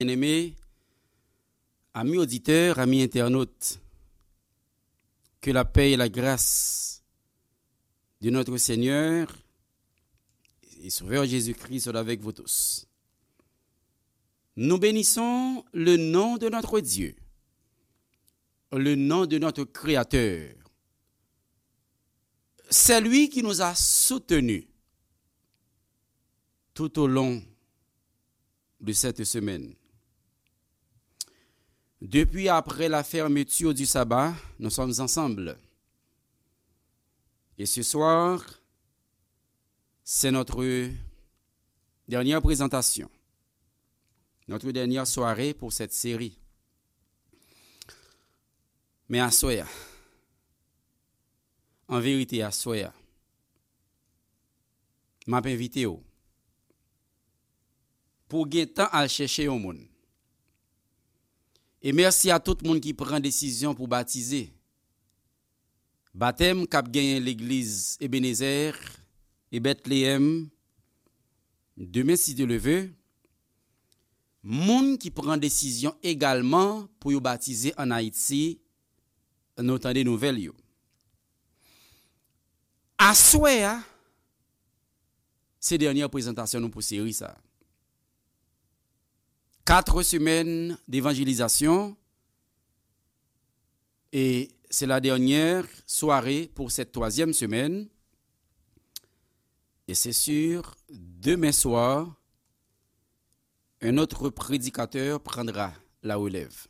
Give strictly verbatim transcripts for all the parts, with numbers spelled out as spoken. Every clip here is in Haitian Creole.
Bien-aimés, amis auditeurs, amis internautes, que la paix et la grâce de notre Seigneur et Sauveur Jésus-Christ soit avec vous tous. Nous bénissons le nom de notre Dieu, le nom de notre Créateur, celui qui nous a soutenus tout au long de cette semaine. Depuis après la fermeture du sabbat, nous sommes ensemble. Et ce soir, c'est notre dernière présentation, notre dernière soirée pour cette série. Men aswè a, an verite aswè a, m ap envite w pou w gentan al chèche yon moun. E mèsi a tout moun ki pran desizyon pou batize. Batèm k ap genyen legliz Ebenezè e Betleyèm demen, si Dye le ve. Moun ki pran desizyon egalman pou yo batize ann Ayiti, nou tande nouvèl yo. Aswè a, se dènye prezantasyon nou pou seri sa a. Quatre semaines d'évangélisation, et c'est la dernière soirée pour cette troisième semaine. Et c'est sûr, demain soir, un autre prédicateur prendra la relève.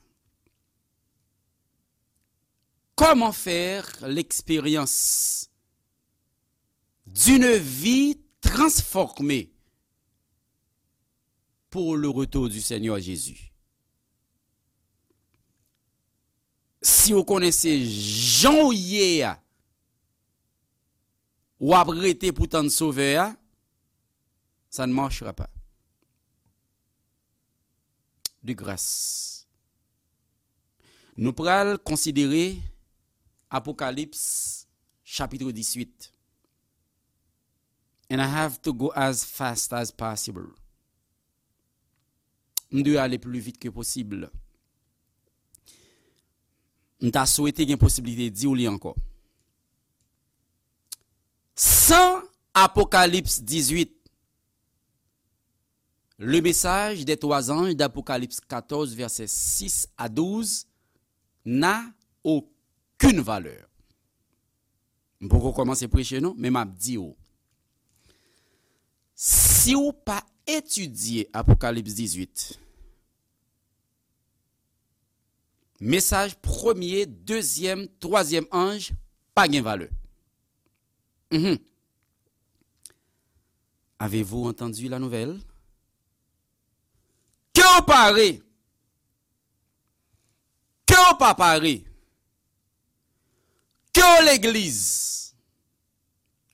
Comment faire l'expérience d'une vie transformée pour le retour du Seigneur Jésus? Si w konnen se jan w ye a, w ap rete pou tann Sovè a, ça ne marchera pas. De grâce. Nou pral konsidere Apokalips chapit diswit. And I have to go as fast as possible. M dwe ale pli vit ke posib. M ta swete gen posiblite di w li ankò. San Apokalips dizwit, le message des trois anges d'Apocalypse quatorze, versets six à douze, n'a aucune valeur. M poko kòmanse preche non, men m ap di w. Si w pa etidye Apokalips dizwit, mesaj premye, dezyèm, twazyèm anj pa gen valè. Mhm. Avez-vous entendu la nouvelle? Ke w pare, ke w pa pare, ke w legliz,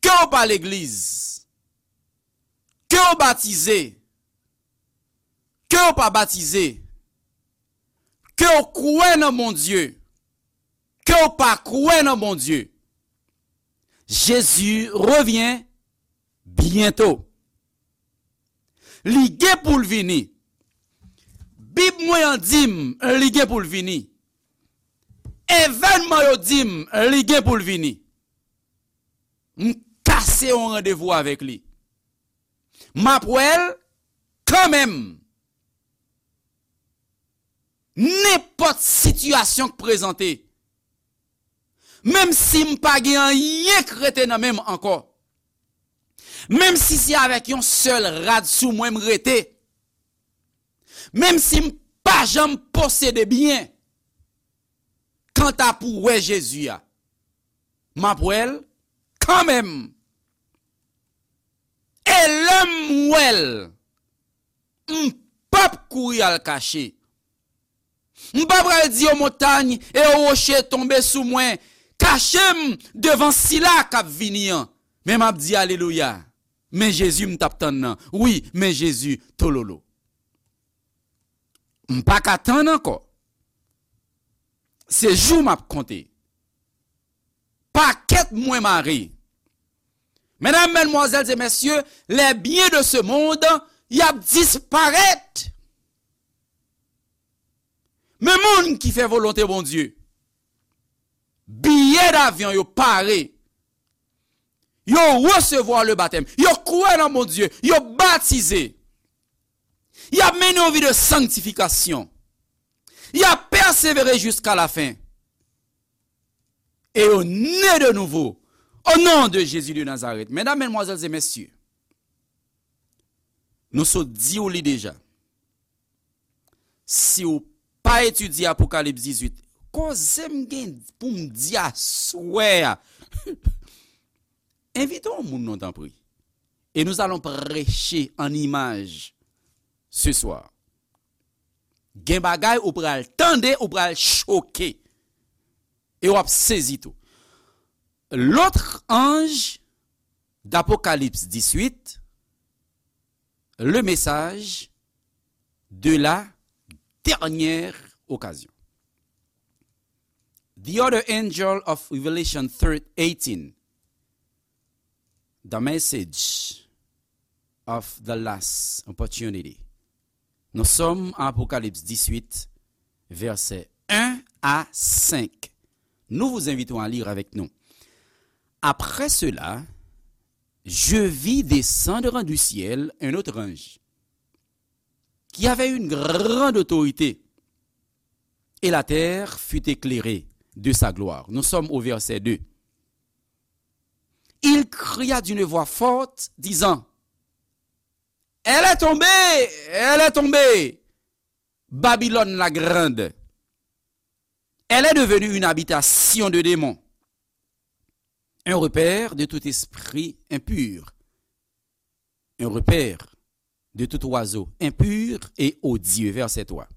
ke w pa legliz, ke w batize, ke w pa batize, ke w kwè nan Bondye, ke w pa kwè nan Bondye, Jezi revyen byento. Li gen pou l vini. Bib mwen an di m li gen pou l vini. Evènman yo di m li gen pou l vini. M kase yon randevou avèk li. M ap wè l kanmenm. Nenpòt sitiyasyon k prezante, menm si m pa gen anyen k rete nan men m ankò, menm si se avèk yon sèl rad sou mwen m rete, menm si m pa janm posede byen, kanta pou wè Jezi a, m ap wè l kanmenm. E lè m wè l, m p ap kouri al kache. M pa pral di yon montany e yon woche tonbe sou mwen, kache m devan sila k ap vini an. Men m ap di alelouya. Men Jezi m t ap tann nan. Wi, men Jezi tololo. M pa ka tann ankò. Se jou m ap konte. Pakèt mwen mare. Medam, madmwazèl e mesye, les biens de ce monde, y ap disparèt. Men moun ki fè volonte Bondye, biyè davyon yo pare. Yo resevwa le batèm. Yo kwè nan Bondye. Yo batize. Y ap mennen yon vi de sanktifikasyon. Y ap pèsevere jiska lafen. E yo ne de nouvo. O non de Jezi de Nazarèt. Medam, medmwazèl e mesye, nou sot di w li deja. Si w pa etidye Apokalips dizuit, koze m gen pou m di aswè a. Envite yon moun non, tanpri. Et nous allons prêcher en image ce soir. Gen bagay ou pral tande, ou pral choke. E w ap sezi tou. L'autre ange d'Apocalypse dix-huit, le message de la dernière occasion. The other angel of Revelation thirteen, the message of the last opportunity. Nous sommes à Apocalypse dix-huit, versets un à cinq. Nous vous invitons à lire avec nous. Après cela, je vis descendre du ciel un autre ange qui avait une grande autorité, et la terre fut éclairée de sa gloire. Nous sommes au verset deux. Il cria d'une voix forte, disant, elle est tombée, elle est tombée, Babylone la grande. Elle est devenue une habitation de démons, un repère de tout esprit impur, un repère de tout oiseau impur et odieux. Verset trois.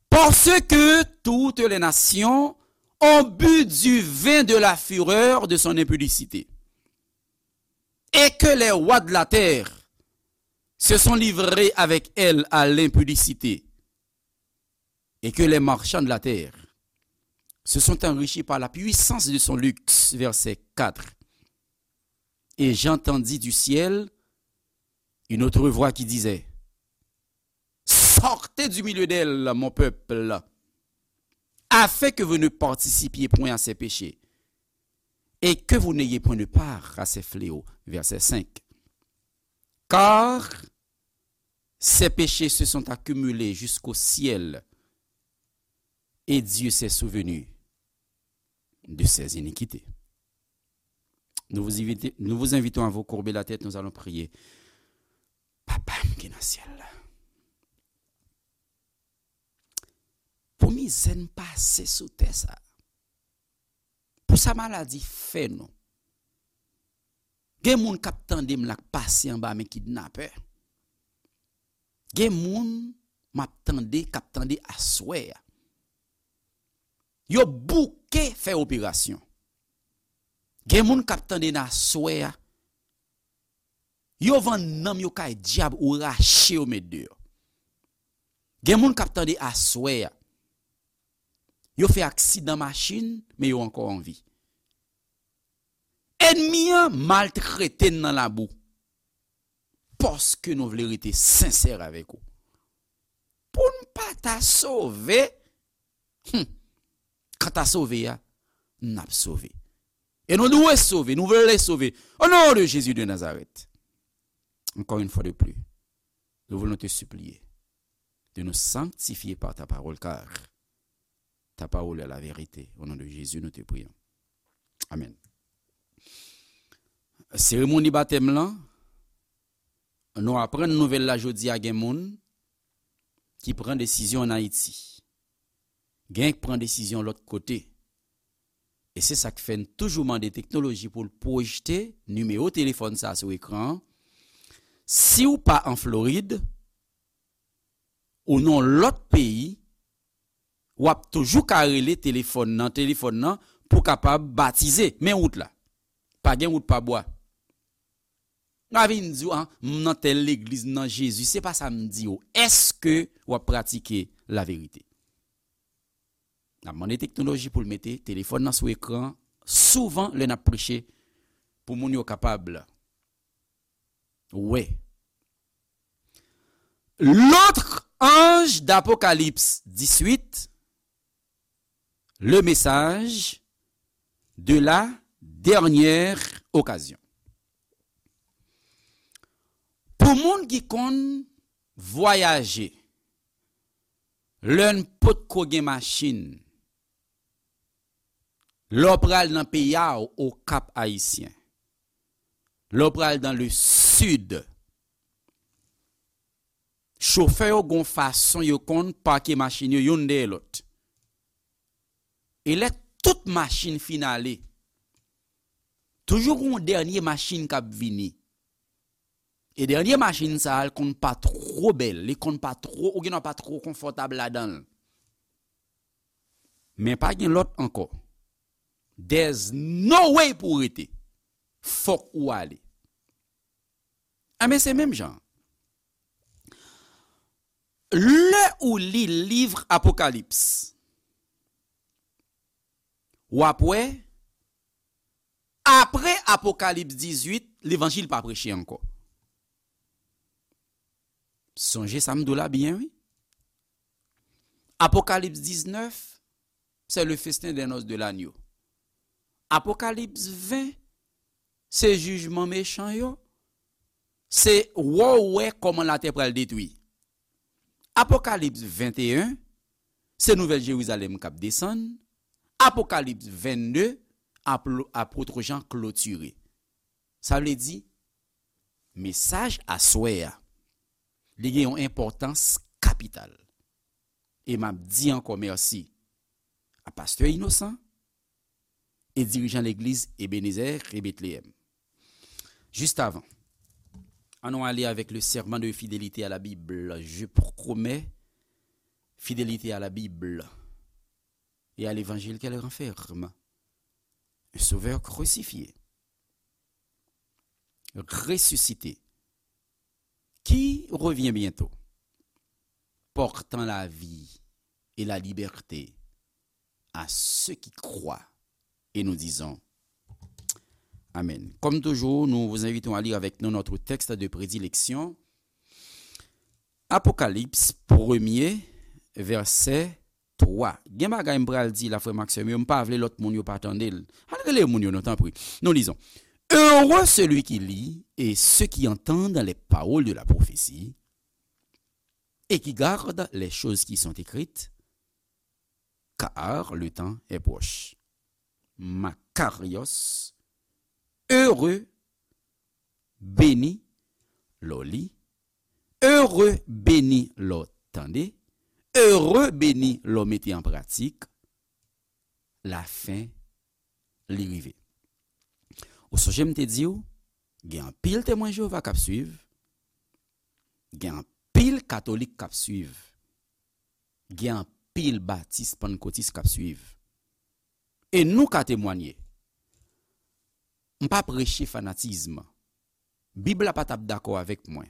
Parce que toutes les nations ont bu du vin de la fureur de son impudicité, et que les rois de la terre se sont livrés avec elle à l'impudicité, et que les marchands de la terre se sont enrichis par la puissance de son luxe. Verset quatre. Et j'entendis du ciel une autre voix qui disait, sortez du milieu d'elle, mon peuple, afin que vous ne participiez point à ses péchés, et que vous n'ayez point de part à ses fléaux. Verset cinq. Car ses péchés se sont accumulés jusqu'au ciel, et Dieu s'est souvenu de ses iniquités. Nous vous invitons, nous vous invitons à vous courber la tête, nous allons prier. Papa m ki nan syèl la, pou mizè n pase sou tè sa, pou sa maladi fè nou, gen moun k ap tande m la k pase anba men kidnapè. Gen moun m ap tande, k ap tande aswè a. Yo bouke fè operasyon. Gen moun k ap tande n aswè a. Yo vann nanm yo kay dyab ou rache yo met deyò. Gen moun k ap tande aswè a. Yo fè aksidan machin, men yo ankò an vi. Ènmi an maltrete n nan labou. Paske nou vle rete sensè avèk ou. Pou n pa ta sove, hmm, kanta sove a, n ap sove. E nou dwe sove, nou vle sove. Au nom de Jésus de Nazareth. Encore une fois de plus, nous voulons te supplier de nous sanctifier par ta parole, car ta parole est la vérité. Au nom de Jésus, nous te prions. Amen. Seremoni batèm lan, nou aprann nouvèl la jodi a, gen moun ki pran desizyon ann Ayiti. Gen k pran desizyon lòt kote. E se sa k fè n toujou mande teknoloji pou l pwojte nimewo telefòn sa a sou ekran an. Si w pa an Florid, ou nan lòt peyi, w ap toujou ka rele telefòn nan, telefòn nan pou kapab batize. Men wout la. Pa gen wout pa bwa. M pa vin di w, ah, m nan tèl legliz, m nan Jezi. Se pa sa m di w. Èske w ap pratike laverite? N ap mande teknoloji pou l mete telefòn nan sou ekran souvan lè n ap preche pou moun yo kapab wè. L'autre ange Apokalips dizuit, le message de la dernière occasion. Pou moun ki konn vwayaje, lè n potko gen machin, lè w pral nan peyi a w, Okap Ayisyen, lè w pral dans le sud, chofè yo gon fason yo konn pake machin yo youn dèyè lòt. E lè tout machin fin ale, toujou gon dènye machin k ap vini. E dènye machin sa a, l konn pa twò bèl, li konn pa twò, ou gendwa pa twò konfòtab ladan l. Men pa gen lòt ankò. There's no way pou w rete. Fòk ou ale. Enben, se menm jan. Lè ou li liv Apokalips, w ap wè, apre Apokalips dizuit, levanjil pa preche ankò. Sonje sa m di w la byen, wi. Apokalips diznèf, c'est le festin des noces de l'agneau. Apokalips ven, se jijman mechan yo. Se wè w wè kòman latè pral detwi. Apokalips venteyen, se Nouvèl Jerizalèm k ap desann. Apokalips vennde, apl-, apot Jan klotire. Sa vle di, mesaj aswè a, li gen yon enpòtans kapital. E m ap di ankò mèsi a pastè Inosan e dirijan legliz Ebenezer e Betleyèm. Juste avant, annou ale avec le serment de fidélité à la Bible. Je promets fidélité à la Bible et à l'évangile qu'elle renferme. Un sauveur crucifié, ressuscité, qui revient bientôt, portant la vie et la liberté à ceux qui croient. Et nous disons Amen. Comme toujours, nous vous invitons à lire avec nous notre texte de prédilection, Apocalypse premier, verset trois. Gen bagay m pral di la, frè m ak sè m yo, m pa vle lòt moun yo pa tande l. Al rele moun yo non, tanpri. Nous lisons. Heureux celui qui lit et ceux qui entendent les paroles de la prophétie et qui gardent les choses qui sont écrites, car le temps est proche. Makarios, heureux, beni, lè w li, heureux, beni, lè w tande, heureux, beni, lè w mete an pratik, lafen li rive. Ou sonje m te di w, gen anpil Temwen Jewova k ap swiv, gen anpil katolik k ap swiv, gen anpil batis, pannkotis k ap swiv. E nou ka temwanye. M pa preche fanatizm. Bib la pa t ap dakò avèk mwen.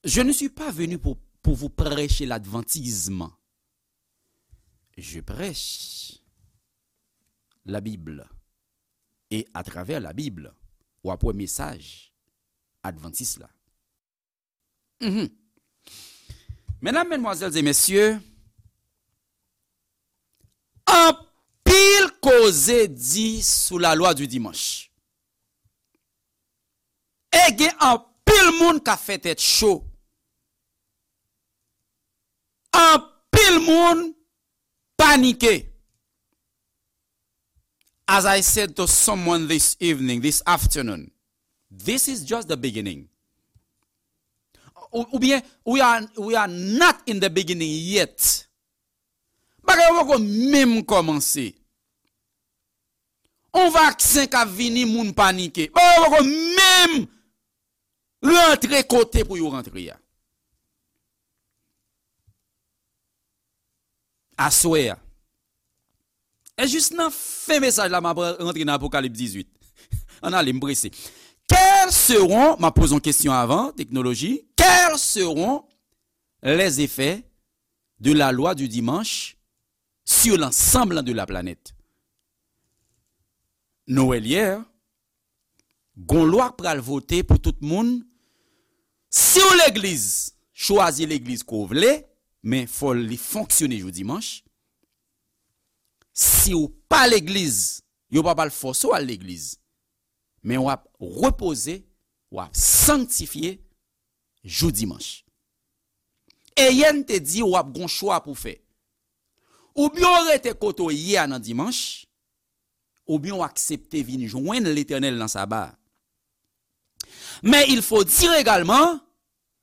Je ne suis pas venu pour, pour vous prêcher l'adventisme. Je prêche la Bible. Et à travers la Bible, w ap wè mesaj advantis la. Mhm. Medam, medmwazèl e mesye, anpil koze di sou la loi du dimanche. E gen anpil moun k ap fè tèt cho. Anpil moun panike. As I said to someone this evening, this afternoon, this is just the beginning. Ou, oubyen, we are, we are not in the beginning yet. Bagay yo poko menm kòmanse. On vaksen k ap vini, moun panike. Bagay yo poko menm rantre kote pou yo rantre a. Aswè a. E jis nan fen mesaj la, m ap rantre nan Apokalips dizuit. Ann ale, m prese. Quels seront, m ap poze yon kesyon avan, teknoloji, quels seront les effets de la loi du dimanche sur l'ensemble de la planète? Nou wè l yè, gon lwa k pral vote pou tout moun. Si w legliz, chwazi legliz ke w vle, men fò li fonksyone jou dimanch. Si w pa legliz, yo pa pral fòse w al legliz. Men w ap repoze, w ap sanktifye jou dimanch. Eyen te di w ap gon chwa pou fè. Oubyen w rete kote w ye a nan dimanch, oubyen w aksepte vin jwenn Letènèl nan saba a. Mais il faut dire également,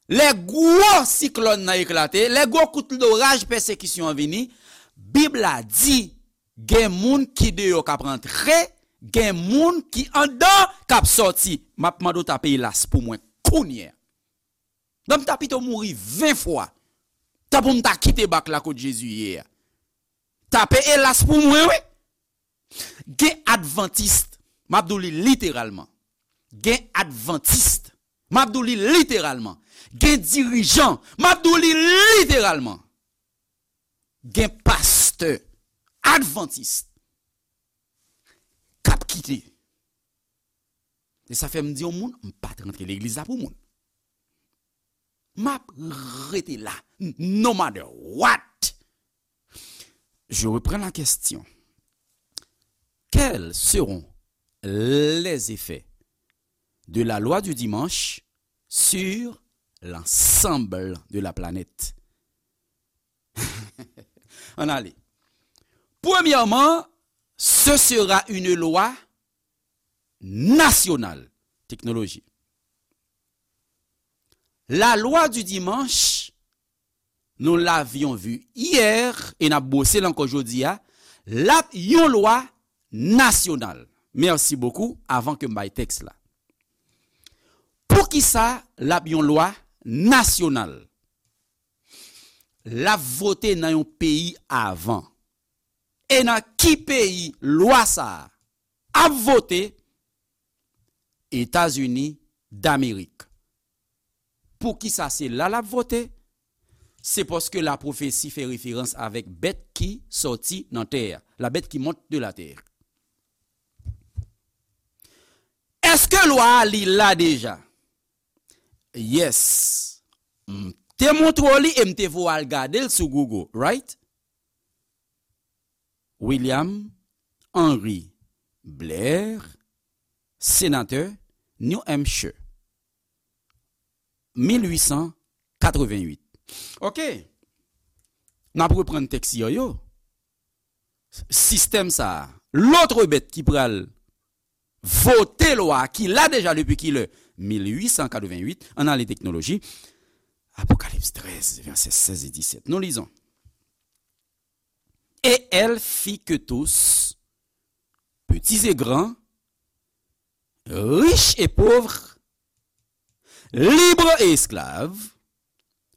lè gwo siklòn nan eklate, lè gwo kout loraj pèsekisyon an vini, Bib la di, gen moun ki deyò k ap rantre, gen moun ki anndan k ap sòti. M ap mande w tape elas pou mwen kounye a. Donk, m ta pito mouri ven fwa, tan pou m ta kite bak la kot Jezi ye a. Tape elas pou mwen, wi. Gen advantis, m ap di w li literalman. Gen advantis, m ap di w li literalman. Gen dirijan, m ap di w li literalman. Gen pastè advantis k ap kite. E sa fè m di yon moun, m pa t rantre legliz la pou moun. M ap rete la, no matter what. Je reprends la question. Quels seront les effets de la loi du dimanche sur l'ensemble de la planète? Ann ale. Premyèman, ce sera une loi nationale. Technologie. La loi du dimanche, nous l'avions vu hier, e n ap bwose l ankò jodi a, l ap yon lwa nasyonal. Merci beaucoup, avan ke m bay tèks la. Poukisa l ap yon lwa nasyonal? L ap vote nan yon peyi avan. E nan ki peyi lwa sa a ap vote? Etazini Damerik. Poukisa se la l ap vote? Se paske lapwofesi fè referans avèk bèt ki sòti nan tè a, la bête qui monte de la terre. Èske lwa a li la deja? Yes. M te montre w li e m te voye w al gade l sou Google, right? William Henry Blair, senatè New Hampshire, mil uit san katrevenn uit. Ok. N ap reprann tèks yo yo. Sistèm sa a, lotre bèt ki pral vote lwa a, ki la deja depi kilè? Mil uit san katrevenn uit, ann ale teknoloji. Apocalypse treize, versets seize et dix-sept. Nous lisons. Et elle fit que tous, petits et grands, riches et pauvres, libres et esclaves,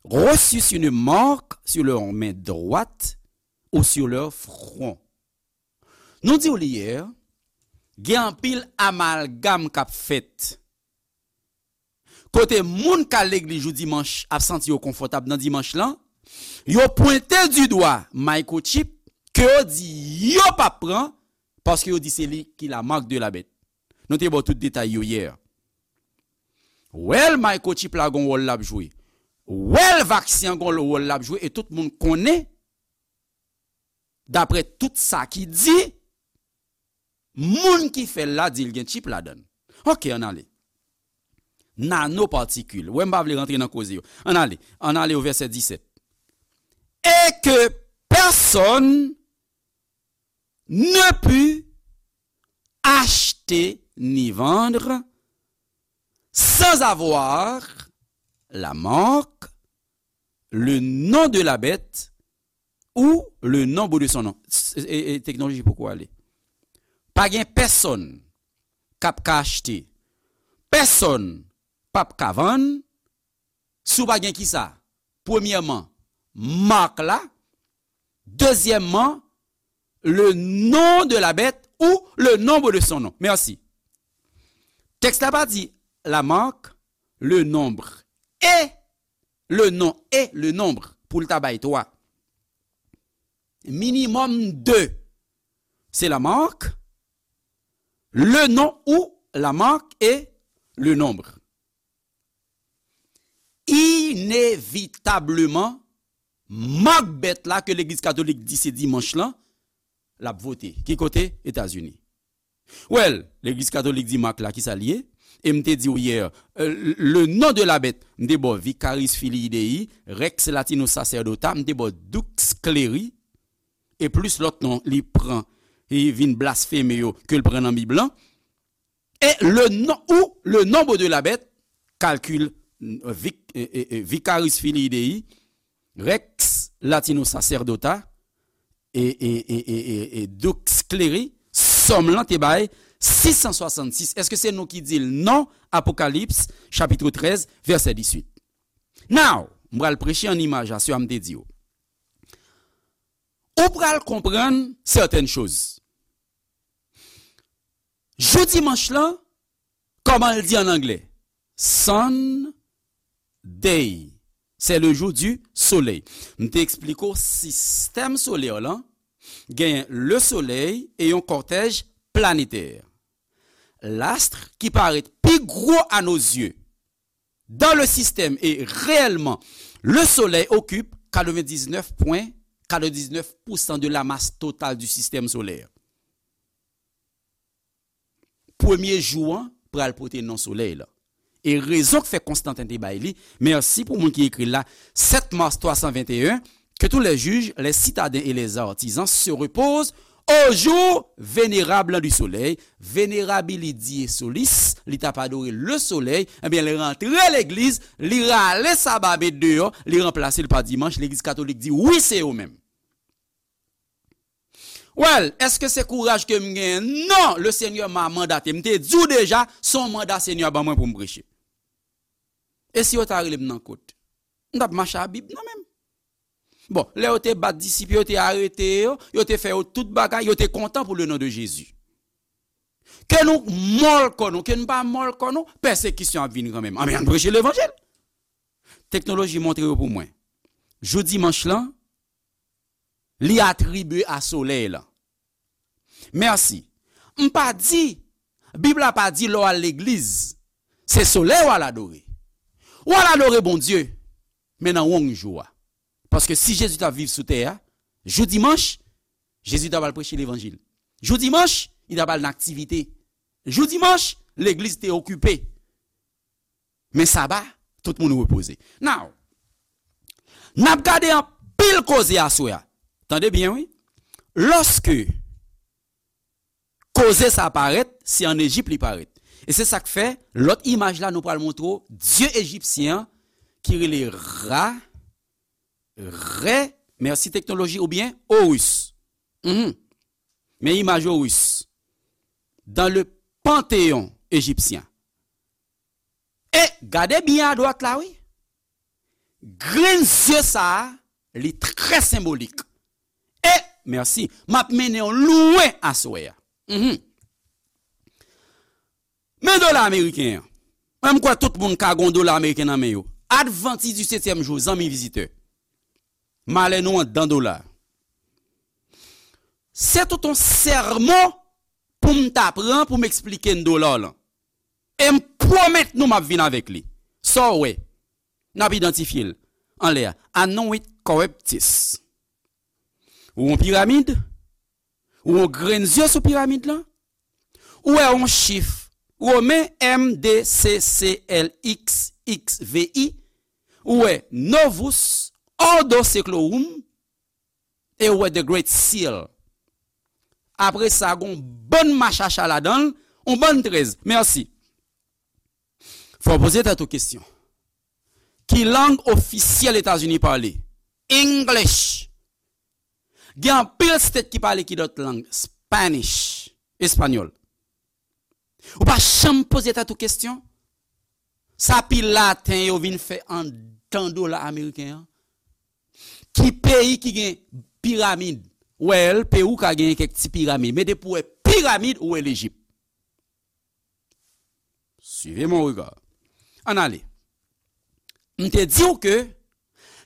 reçussent une marque sur leur main droite ou sur leur front. Nou di w li yè, gen anpil amalgam k ap fèt. Kote moun k al legliz jou dimanch ap santi yo konfòtab nan dimanch lan, yo pwente di dwa microchip ke yo di yo p ap pran, paske yo di se li ki la marque de la bête. Nou te ba w tout detay yo yè. Wèl microchip la gon wòl l ap jwe. Wèl vaksen an gon wòl l ap jwe e tout moun konnen, daprè tout sa ki di, moun ki fè l la di l gen chip ladan l. Ok, ann ale. Nanopatikil. Wè, m pa vle rantre nan koze yo. Ann ale. Ann ale o vèsè disèt. Et que personne ne put acheter ni vendre sans avoir la marque, le nom de la bête ou le nombre de son nom. S-, e, e, teknoloji poko ale. Pa gen pèsonn k ap ka achte. Pèsonn p ap ka vann si w pa gen kisa? Premyèman, mak la. Dezyèmman, le nom de la bête ou le nombre de son nom. Merci. Tèks la pa di la marque, le nombre et le nom et le nombre pou l ta bay twa. Minimòm de. Se la marque, le nom ou la marque et le nombre. I inevitableman, mak bèt la ke Legliz Katolik di se dimanch lan, l ap vote. Ki kote? Etazini. Well, Legliz Katolik di mak la, kisa l ye? E m te di w yè, euh, le nom de la bête, m te ba w Vicarius Filii Dei, Rex Latinus Sacerdota, m te ba w Dux Cleri, e plis lòt non li pran, li vin blasfeme yo, ke l pran nan Bib lan. Et le nom, ou le nombre de la bête, calcul, euh, vic-, euh, euh, euh, Vicarius Filii Dei, Rex Latinus Sacerdota, e, e, e, e, e, e Dux Cleri, sòm lan te bay sis san swasannsis. Èske se nou ki di l? Non, Apokalips, chapit trèz, vèsè dizuit. Now, m pral preche an imaj a, sa m te di w. Ou pral konprann sètèn choz. Jou dimanch lan, kòman l di an anglè? Sunday. C'est le jour du soleil. M te eksplike w sistèm solè lan, genyen le soleil e yon kòtèj planetè. L'astre qui paraît plus gros à nos yeux dans le système et réellement, le soleil occupe quatre-vingt-dix-neuf point quatre-vingt-dix-neuf pour cent de la masse totale du système solaire. Premye jou an pral pote non solèy la. E rezon k fè Konstanten te bay li, mèsi pou moun ki ekri l la, sept mars trois cent vingt et un, que tous les juges, les citadins et les artisans se reposent au jour vénérable du soleil, venerabilidie solis, li t ap adore le soleil, ebyen, li rantre legliz, li rale saba met deyò, li ranplase l pa dimanch, legliz katolik di, wi, se yo menm. Well, èske se kouraj ke m genyen? Non, le Senyè m a mandate. M te di w deja, se yon manda Senyè a ban mwen pou m preche. E si yo ta rele m nan kot? M t ap mache a Bib nan men m. Bon, lè yo te bat disip yo, yo te arete yo, yo te fè yo tout bagay, yo te kontan pou le non de Jezi. Ke nou mòl kò nou, ke nou pa mòl kò nou, pèsekisyon ap vin kanmenm. Anben, ann preche levanjil. Teknoloji montre yo pou mwen. Jou dimanch lan, li atribye a solèy lan. Mèsi. M pa di, Bib la pa di lè w al legliz, se solèy w al adore. W al adore Bondye, men nan wrong jou a. Paske si Jezi t ap viv sou tè a, jou dimanch, Jezi t ap al preche levanjil. Jou dimanch, li t ap al nan aktivite. Jou dimanch, legliz te okipe. Men saba, tout moun repoze. Now, n ap gade anpil koze aswè a. Tande byen, wi. Lòske koze sa parèt, se ann Ejip li parèt. E se sa k fè, lòt imaj la, nou pral montre w dye ejipsyen an ki rele Ra, Rè, mèsi teknoloji, oubyen Horus. Mhm. Men imaj Horus. Dans le panthéon égyptien. E gade byen adwat la, wi. Grenn zye sa a, li trè senbolik. E, mèsi, m ap mennen w lwen aswè a. Mhm. Men dola ameriken an. Mwen, m kwè tout moun ka gon dola ameriken nan men yo. Advantis di setyèm jou, zanmi vizitè. Malè nou anndan dola. Se tout yon sèmon pou m ta pran pou m eksplike n dola lan. E m pwomèt nou m ap vin avèk li. Sa w wè? N ap idantifye l anlè a. Annuit corruptis. Ou yon piramid? Ou yon grenn zye sou piramid lan? Ou wè yon chif Women M D C C L X X V I? Ou wè Novus Ordo Seclorum? E ou wè The Great Seal. Apre sa, gon bann machacha ladan l, yon bann trèz. Mèsi. Fò w poze tèt ou kesyon. Ki lang ofisyèl Etazini pale? English. Gen anpil state ki pale ki dòt lang? Spanish, espanyòl. Ou pa janm poze tèt ou kesyon? Sa pi laten yo vin fè anndan dola ameriken an? Ki peyi ki gen piramid? Well, Pewou ka genyen kèk ti piramid, men depi w wè piramid, ou wè Lejip. Suivez mon regard. Ann ale. M te di w ke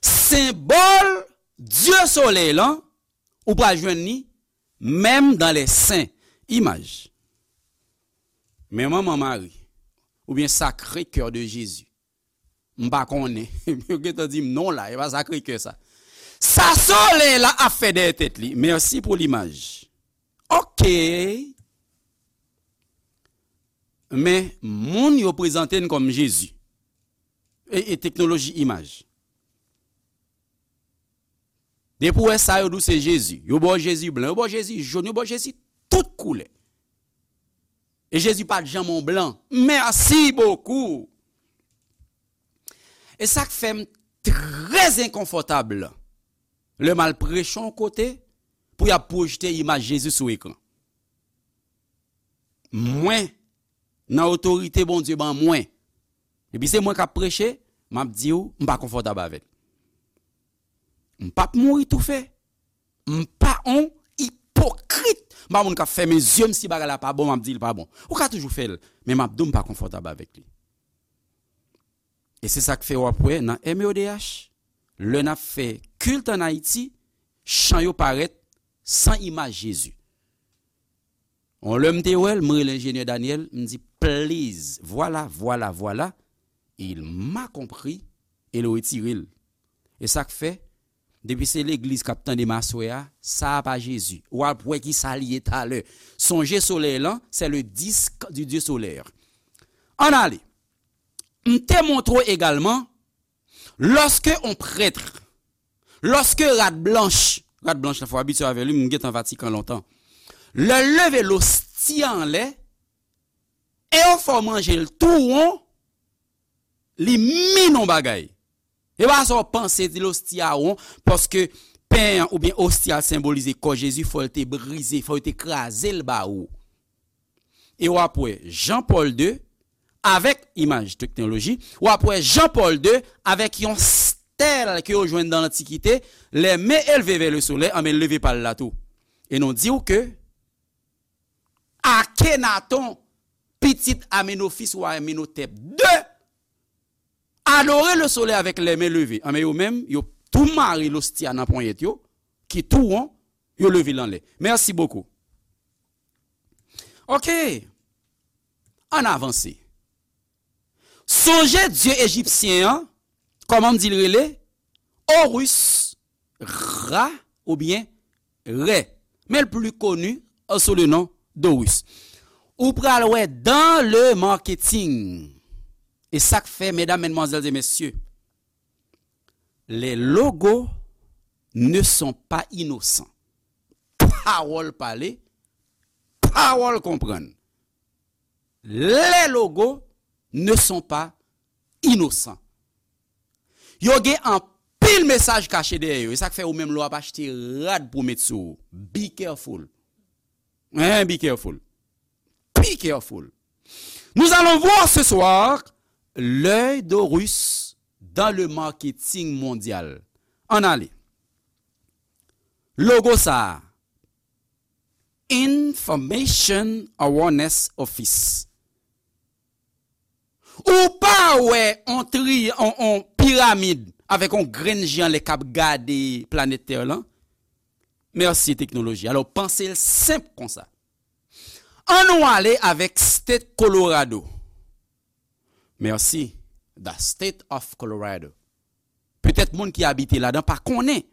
senbòl dye solèy lan, ou pral jwenn li menm dans les saints. Imaj. Men manman Mari, oubyen Sacré Cœur de Jésus. M pa konnen. Yo gentan di m non la, e pa Sacré-Cœur sa. Sa solèy la ap fè dèyè tèt li. Mèsi pou limaj. Ok. Men, moun yo prezante n kòm Jezi. E, e teknoloji imaj. Depi w wè sa, yo di w se Jezi. Yo ba w Jezi blan, yo ba w Jezi jòn, yo ba w Jezi tout koulè. E Jezi pa t janm on blan. Merci beaucoup. E sa k fè m trè enkonfòtab lè m al preche yon kote pou y ap pwojte imaj Jezi sou ekran. Mwen, nan otorite Bondye ban mwen, epi se mwen k ap preche, m ap di w, m pa konfòtab avè l. M p ap mouri toufe. M pa on ipokrit. M pa moun k ap fèmen zye m si bagay la pa bon, m ap di l pa bon. Ou ka toujou fè l, men m ap di w m pa konfòtab avèk li. E se sa k fè w ap wè nan M O D H, lè n ap fè kilt ann Ayiti, chan yo parèt san imaj Jezi. On lè m te wè l, m rele enjenyè Daniel, m di, please, vwala, vwala, vwala, il m'a compris, e l retire l. E sa k fè, depi se legliz k ap tande m aswè a, sa a pa Jezi. W ap wè ki sa l ye talè. Sonje solèy lan, c'est le disque du Dieu solaire. Ann ale. M te montre w egalman, lorsque on prêtre, lorsque rad blanch, rad blanch la fò abitye avè li, m gentan Vatikan lontan. Lè l leve losti a anlè, e yo fè w manje l tou won, li min on bagay. E pa sa w panse di losti a won, paske pen an oubyen osti a senbolize kò Jezi, fò l te brize, fò yo te kraze l ba ou. E w ap wè Jean Paul deux, avèk imaj teknoloji, w ap wè Jean Paul deux avèk yon stèl ke yo jwenn nan Lantikite, les mains élevées vers le soleil, anben l leve pa l la tou. E nou di w ke Akhenaton, pitit Amenofis wa Amenhotep deux, adore le soleil avec les mains levées. Anben yo menm, yo tou mare losti a nan ponyèt yo, ki tou won, yo leve l anlè. Merci beaucoup. Ok. Ann avanse. Sonje dye ejipsyen an, kòman m di l rele? Horus, Ra oubyen Rè. Men l pli koni sou le non d'Horus. Ou pral wè dans le marketing. E sa k fè, medam, medmwazèl e mesye, les logos ne sont pas innocents. Pawòl pale, pawòl konprann. Les logos ne sont pas innocents. Yo gen anpil mesaj kache dèyè yo. E sa k fè ou menm lè w ap achte rad pou w met sou ou. Be careful. Hein, be careful. Be careful. Nous allons voir ce soir l'œil d'Horus dans le marketing mondial. Ann ale. Logo sa a, Information Awareness Office. Ou pa wè on tri, on, on piramid avèk on grenn je anlè k ap gade planèt Tè lan? Mèsi teknoloji. Alò, panse l senp konsa. Ann nou ale avèk State Colorado. Mèsi. The State of Colorado. Petèt moun ki abite ladan pa konnen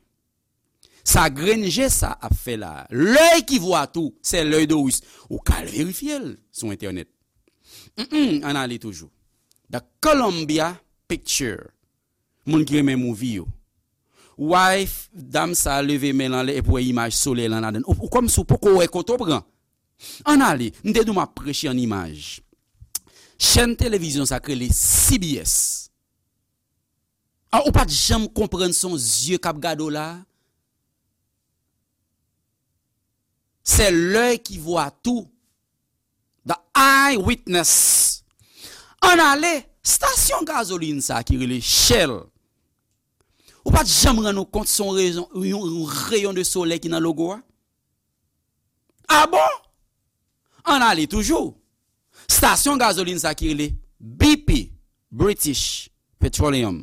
sa grenn je sa ap fè la. L'œil qui voit tout, c'est l'œil d'Horus. Ou ka al verifye l sou entènèt. Mm, ann ale toujou. The Columbia Picture. Moun ki renmen movie yo. Wife, dam sa leve men l anlè epi w wè imaj solèy lan ladan l. Ou, ou kòmsi w poko wè kote w pran. Ann ale, m te di w m ap preche an imaj. Chèn televizyon sa k rele C B S. A, ou pa t janm konprann se yon zye k ap gade w la? C'est l'œil qui voit tout. The Eyewitness. Ann ale, stasyon gazolin sa ki rele Shell. Ou pa t janm rann ou kont se yon rezon, yon, yon reyon de solèy ki nan logo a? A bon? Ann ale toujou. Stasyon gazolin sa ki rele B P, British Petroleum.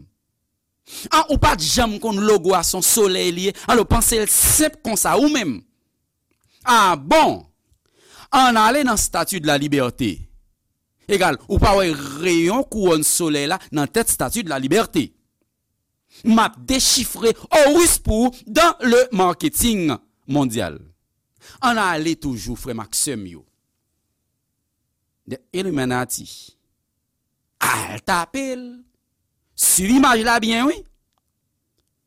An, ou pa t janm konn logo a se yon solèy li ye? Alò, panse l senp konsa, ou menm. A bon? Ann ale nan Statue de la Liberté. Egal, ou pa wè reyon kouwòn solèy la nan tèt Statue de la Liberté. M ap dechifre Horus pou ou dans le marketing mondyal. Ann ale toujou, frè m ak sè m yo. The Illuminati. Al tape l. Swiv imaj la byen, wi.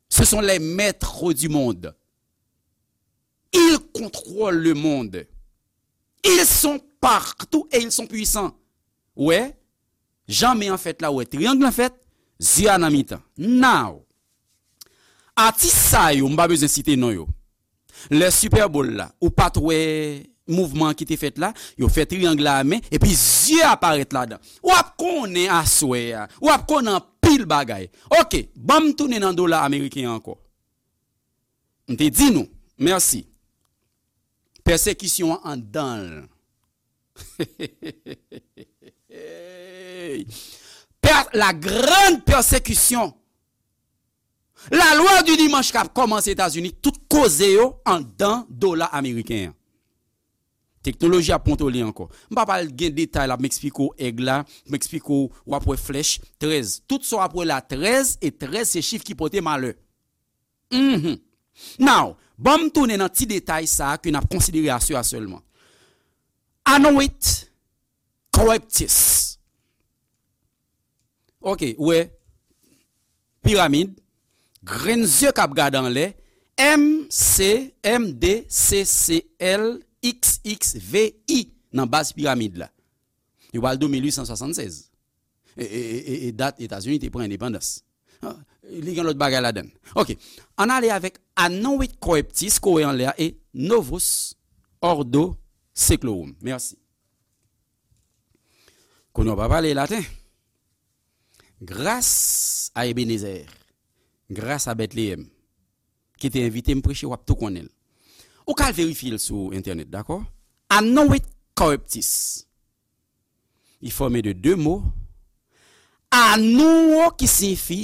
Ce sont les maîtres du monde. Ils contrôlent le monde. Ils sont partout et ils sont puissants. Wè, jan men an fèt la, wè triyang lan fèt, zye a nan mitan. Now, atis sa yo, m pa bezwen site non yo. Lè Super Bowl la, ou pa t wè mouvman ki te fèt la, yo fè triyang la a men, epi zye a parèt ladan. W ap konnen aswè a, w ap konnen anpil bagay. Oke, ban m tounen nan dola ameriken an ankò. M te di nou, mèsi. Pèsekisyon an anndan l. Per, la grande persécution. La loi du dimanche k ap kòmanse Etazini, tout koze yo anndan dola ameriken an. Teknoloji ap kontwole ankò. M pa pral gen detay la, m eksplike w èg la, m eksplike w, w ap wè flèch trèz. Tout sa w ap wè la trèz, e trèz se chif ki pote malè. Mhm. Now, ban m tounen nan ti detay sa a ke n ap konsidere aswè a sèlman. Anowit Corruptus. Oke, ou wè, piramid, grenn zye k ap gade anlè, M C, M D C C L X X V I nan baz piramid la. Yo pral de mil uit san swasannsèz. E, e, e, e, e dat Etazini te pran endepandans. Ah, li gen lòt bagay ladan l. Oke. Ann ale avèk Anowit Corruptus, ke w wè anlè a, e Novus Ordo Seclorum. Mèsi. Kounye a w pa pale laten. Gras a Ebenezer, gras a Bètleyèm, ki te envite m preche, w ap tou konnen l. Ou ka al verifye l sou entènèt, dakò? Anowit Corruptus. Li fòme de de mo. Anouwo ki siyifi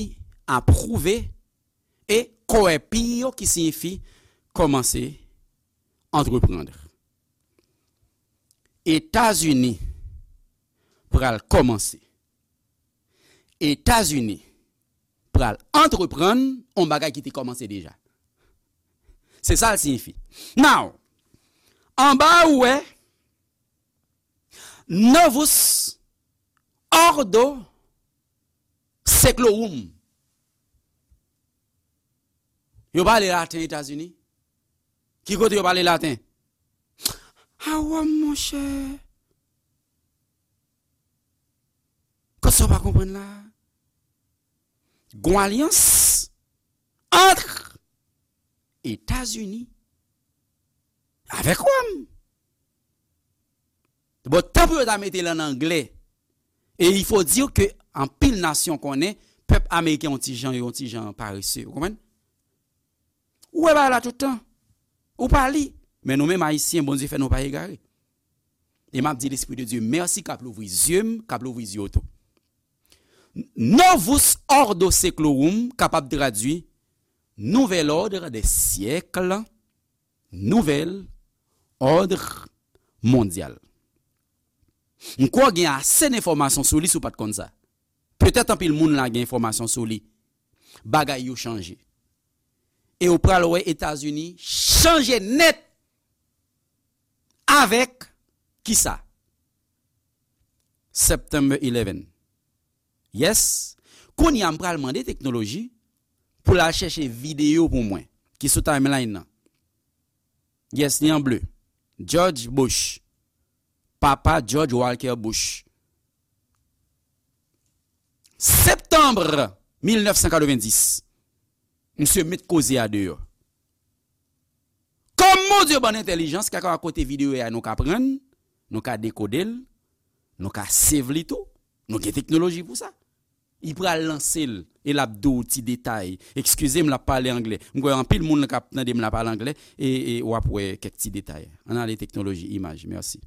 apwouve e corrupio ki siyifi kòmanse, entreprendre. Etazini pral kòmanse. Etazini pral antreprann yon bagay ki te kòmanse deja. Se sa l siyifi. Now, anba a ou wè Novus Ordo Seclorum. Yo pale laten Etazini? Ki kote yo pale laten? A Wòm, monchè. Kote sa w pa konprann la? Gon alyans ant Etazini avèk Wòm. Bon, tan pou yo ta mete l ann anglè. E il faut dire que anpil nasyon konnen pèp ameriken yon ti jan, yon ti jan parese. Ou konprann? Ou wè bagay la tout tan. Ou pa li. Men nou menm Ayisyen, Bondye fè nou pa egare. E m ap di Lespri de Dye mèsi k ap louvri zye m, k ap louvri zye w tou. Novus Ordo Seclorum kapab tradui Nouvel Ordre des Siècles, Nouvel Ordre Mondial. M kwè w gen ase enfòmasyon sou li si w pa t konn sa. Petèt anpil moun la gen enfòmasyon sou li. Bagay yo chanje. E w pral wè Etazini chanje nèt avèk kisa? September eleven. Yes. Kounye a m pral mande teknoloji pou l al chèche videyo pou mwen ki sou timeline nan. Yes, li an ble. George Bush. Papa George Walker Bush. Septanm mil nèf san katrevenndis. Misye met koze a deyò. Kòm Bondye ban n entèlijans, kèlkeswa kote videyo a nou ka pran l, nou ka dekode l, nou ka save li tou, nou gen teknoloji pou sa. Li pral lanse l, e l ap di w ti detay. Eskize m, l ap pale anglè. M kwè anpil moun k ap tande m la pale anglè, e, e w ap wè kèk ti detay. Ann ale teknoloji, imaj. Mèsi.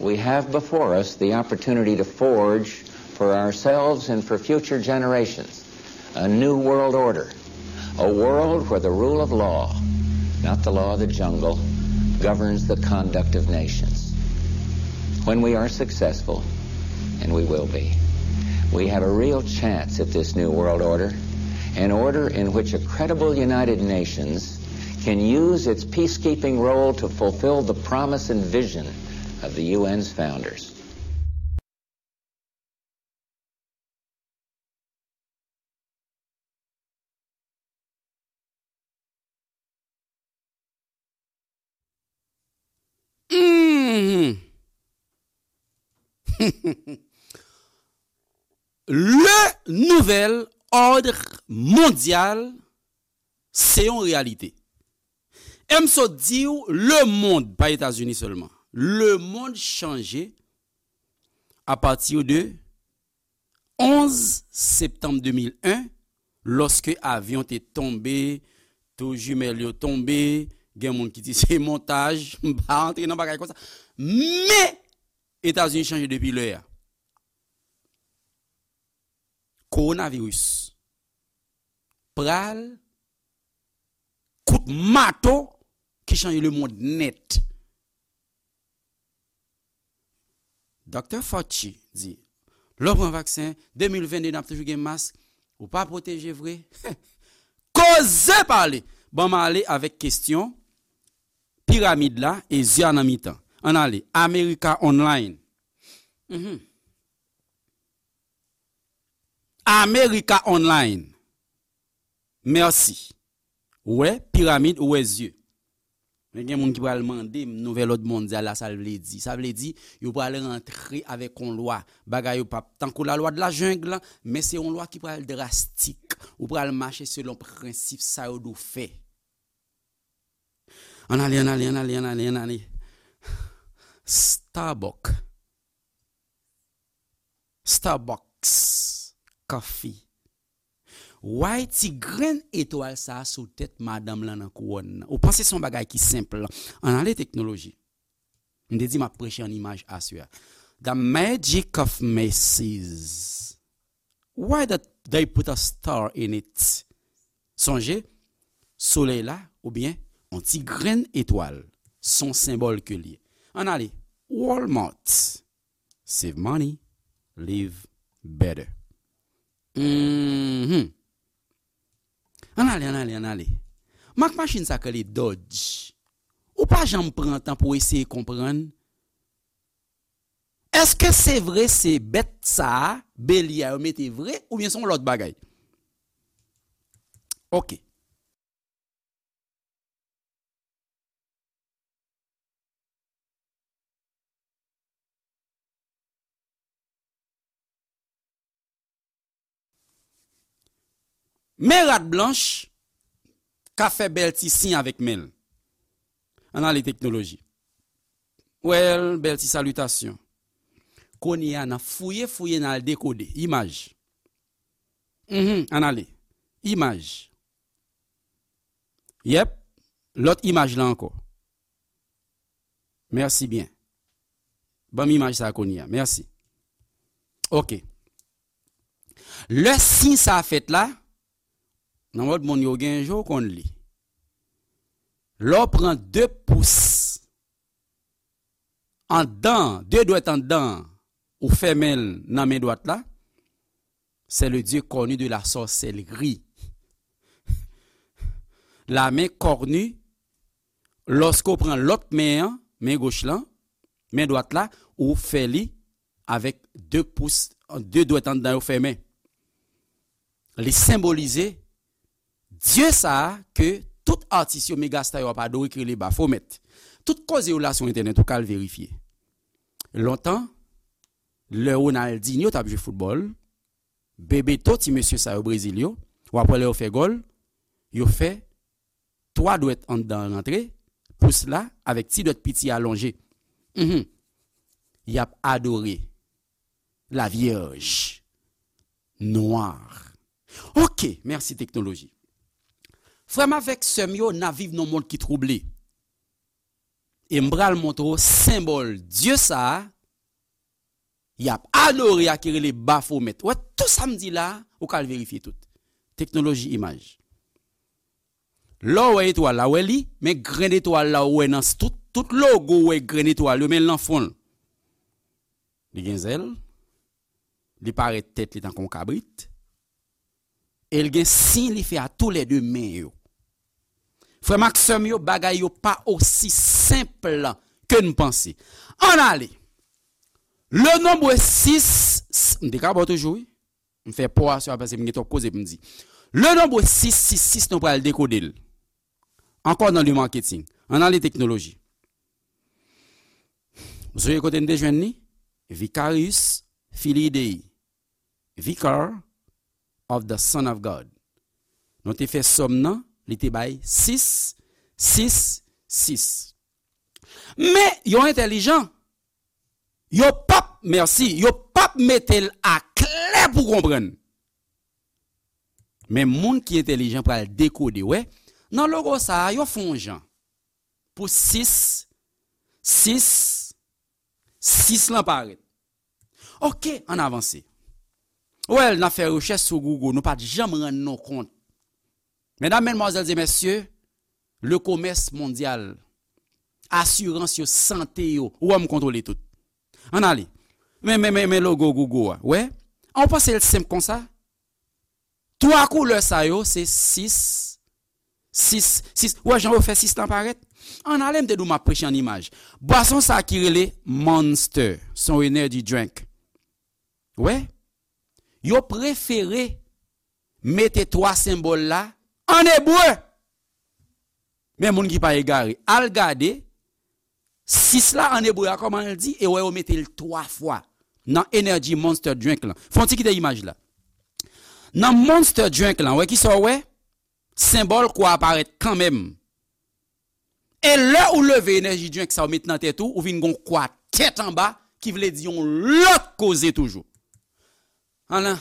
We have before us the opportunity to forge for ourselves and for future generations a new world order, a world where the rule of law, not the law of the jungle, governs the conduct of nations. When we are successful, and we will be, we have a real chance at this new world order, an order in which a credible United Nations can use its peacekeeping role to fulfill the promise and vision of the U N's founders. Mhm. Le nouvel ordre mondial, se yon reyalite. E m sot di w, lemonn, pa Etazini sèlman, lemonn chanje apati de onz septanm de mil en, lòske avyon te tonbe, tou jimèl yo tonbe, gen moun ki di se montaj, m pa antre nan bagay konsa. Men, Etazini chanje depi lè a. Kowonaviris pral kout mato ki chanje lemonn nèt. Doktè Fauci di, lè w pran vaksen, de mil venn de n ap toujou gen mask, ou pa pwoteje vre. Koze pale! Ban m ale avèk kesyon piramid la e zye a nan mitan. Ann ale, America Online. Mhm. America Online. Mèsi. Ou wè, piramid, ou wè zye. Men gen moun ki pral mande m nouvèl òd mondyal la, sa l vle di. Sa vle di, yo pral rantre avèk yon lwa. Bagay yo p ap tankou la lwa de la jungle, men se yon lwa ki pral drastik. Ou pral mache selon prensip sa yo di w fè. Ann ale, ann ale, ann ale, ann ale, ann ale. Starbucks. Starbucks Coffee. Why ti grenn etwal sa a sou tèt madanm lan nan kouwòn nan? Ou panse se yon bagay ki senp? Ann ale teknoloji. M te di m ap preche an imaj aswè a. The magic of Macy's. Why that they put a star in it? Sonje, solèy la, oubyen yon ti grenn etwal, se yon senbòl ke l ye. Ann ale, Walmart. Save money, live better. Mhm. Ann ale, ann ale, ann ale. Mak machin sa k rele Dodge. Ou pa janm pran tan pou w eseye konprann. Èske se vre se bèt sa a, belye a yo mete vre, oubyen se yon lòt bagay? Ok. Men rad blanch k ap fè bèl ti siy avèk men l. Ann ale teknoloji. Well, bèl ti salitasyon. Kounye a, n ap fouye, fouye, n al dekode. Imaj. Mhm, ann ale. Imaj. Yèp. Lòt imaj la ankò. Mèsi byen. Ban m imaj sa a kounye a. Mèsi. Ok. Lè siy sa a fèt la, nan lòt monn yo gen je w konn li. Lè w pran de pous anndan, de dwèt anndan, ou fèmen l nan men dwat la, c'est le dieu cornu de la sorcellerie. La main cornue, lòske w pran lòt men an, men goch lan, men dwat la, ou fè li avèk de pous, de dwèt anndan yo fèmen. Li senbolize dye sa a ke tout atis yo, megasta yo ap adore, ki rele Bafomèt. Tout koze yo la sou entènèt, ou ka al verifye. Lontan, lè Ronaldinho t ap jwe foutbòl, Bebeto, ti mesye sa yo Brezil yo, w ap wè lè yo fè gòl, yo fè twa dwèt anndan rantre, pous la avèk ti dwèt piti a lonje. Mhm. Y ap adore la Vierge Noire. Ok, mèsi teknoloji. Frè m avèk sè m yo, n ap viv nan yon mond ki twouble. E m pral montre w senbòl dye sa a, y ap adore a ki rele Bafomèt. Ou wè, tou sa m di la, ou ka al verifye tout. Teknoloji imaj. Lè w wè etwal la, w wè li, men grenn etwal la, w wè nan s-, tout, tout logo, w wè grenn etwal yo, men l nan fon l. Li gen zèl, li parèt tèt li tankou yon kabrit, e l gen siy li fè a toulède men yo. Frè m ak sè m yo, bagay yo pa osi senp ke n panse. Ann ale. Le nombre six, m te ka ba w toujou, wi. M fè pò a sou a paske m gen twòp koze pou m di. Le nombre six six six, nou pral dekode l. Ankò nan le marketing. Ann ale teknoloji. Ou sonje kote n te jwenn li? Vicarius Filii Dei, Vicar of the Son of God. Nou te fè sòm nan, li te bay sis sis sis. Men, yo entèlijan. Yo p ap, mèsi, yo p ap mete l aklè pou konprann. Men moun ki entèlijan pral dekode, wè, nan logo sa a, yo fè yon jan pou sis sis sis lan parèt. Oke, ann avanse. Wè, n ap fè rechèch sou Google, nou pa t janm rann nou kont. Medam, medmwazèl e mesye, le commerce mondial, asirans yo, sante yo, ou wè m kontwole tout. Ann ale. Men, men, men, men logo Google a. Wè? An w panse l senp konsa? Twa koulè sa yo, se sis sis sis. Ou wè jan yo fè sis lan parèt? Ann ale, m te di w m ap preche an imaj. Bwason sa ki rele Monster, se yon energy drink. Wè? Yo prefere mete twa senbòl la an ebre. Men moun ki pa egare, al gade sis la an ebre a kòman l di, e wè yo mete l twa fwa nan Energy Monster Drink lan. Fè yon ti kite imaj la. Nan Monster Drink lan, wè kisa w wè? Senbòl kwa a parèt kanmenm. E lè ou leve Energy Drink sa ou met nan tèt ou, ou vin gon kwa tèt anba, ki vle di yon lòt koze toujou. Ann,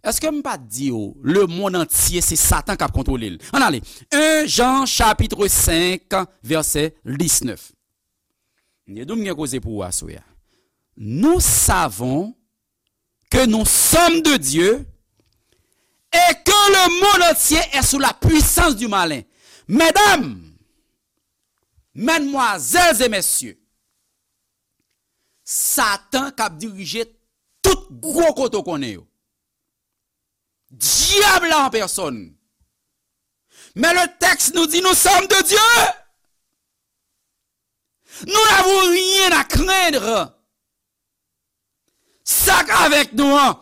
èske m pa t di w, lemonn antye se Satan k ap kontwole l? Ann ale. En Jan chapitre cinq, vèsè diznèf. M te di w m gen koze pou ou aswè a. Nous savons que nous sommes de Dieu et que le monde entier est sous la puissance du malin. Medam, medmwazèl e mesye, Satan k ap dirije tout gwo kote w konnen yo. Dyab la an pèsòn. Men le tèks nou di, nous sommes de Dieu. Nous n'avons rien à craindre. Sa k avèk nou an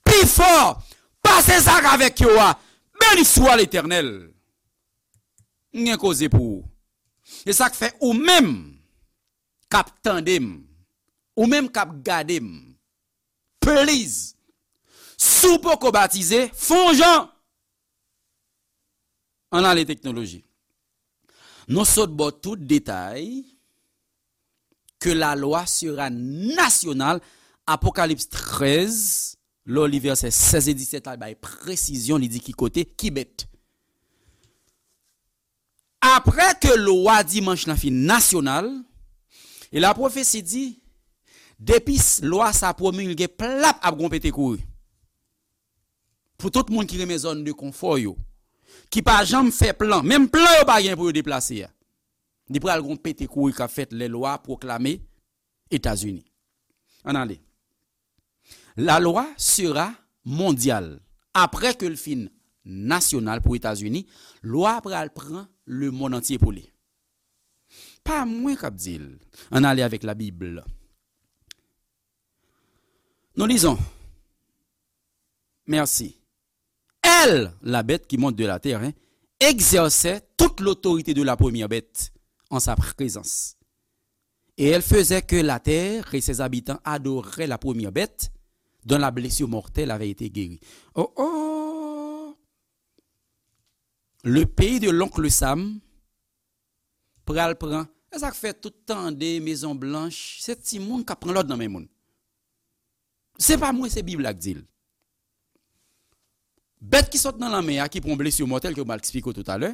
pi fò pase sa k avèk yo a. Beni swa Letènèl. M gen koze pou ou. E sa k fè ou menm k ap tande m, ou menm k ap gade m, please, si w poko batize, fè yon jan. Ann ale teknoloji. Nou sot ba w tout detay que la loi sera nationale, Apokalips trèz, lè w li vèsè sèz e disèt la, li bay presizyon, li di ki kote, ki bèt. Apre ke lwa dimanch lan fin nasyonal, e la pwofesi di, depi s-, lwa sa pwomilge, plap, ap gon pete kouri. Pou tout moun ki renmen zòn de konfò yo, ki pa janm fè plan, menm plan yo pa gen pou yo deplase a. Li pral gon pete kouri k ap fèt lè lwa pwoklame Etazini. Ann ale. La loi sera mondiale. Apre ke l fin nasyonal pou Etazini, lwa a pral pran lemonn antye pou li. Pa mwen k ap di l. Ann ale avèk Labib. Nous lisons. Merci. Elle, la bête qui monte de la terre, hein, exerçait toute l'autorité de la première bête en sa présence. Et elle faisait que la terre et ses habitants adoraient la première bête dont la blessure mortelle avait été guérie. Oh oh! Le pays de l'oncle Sam pral pran. E sa k fè tout tande Mezon Blanch, se timoun k ap pran lòd nan men moun. Se pa mwen, se Bib la k di l. Bèt ki sot nan lanmè a, ki pran blesi mòtèl ke m al eksplike w toutalè,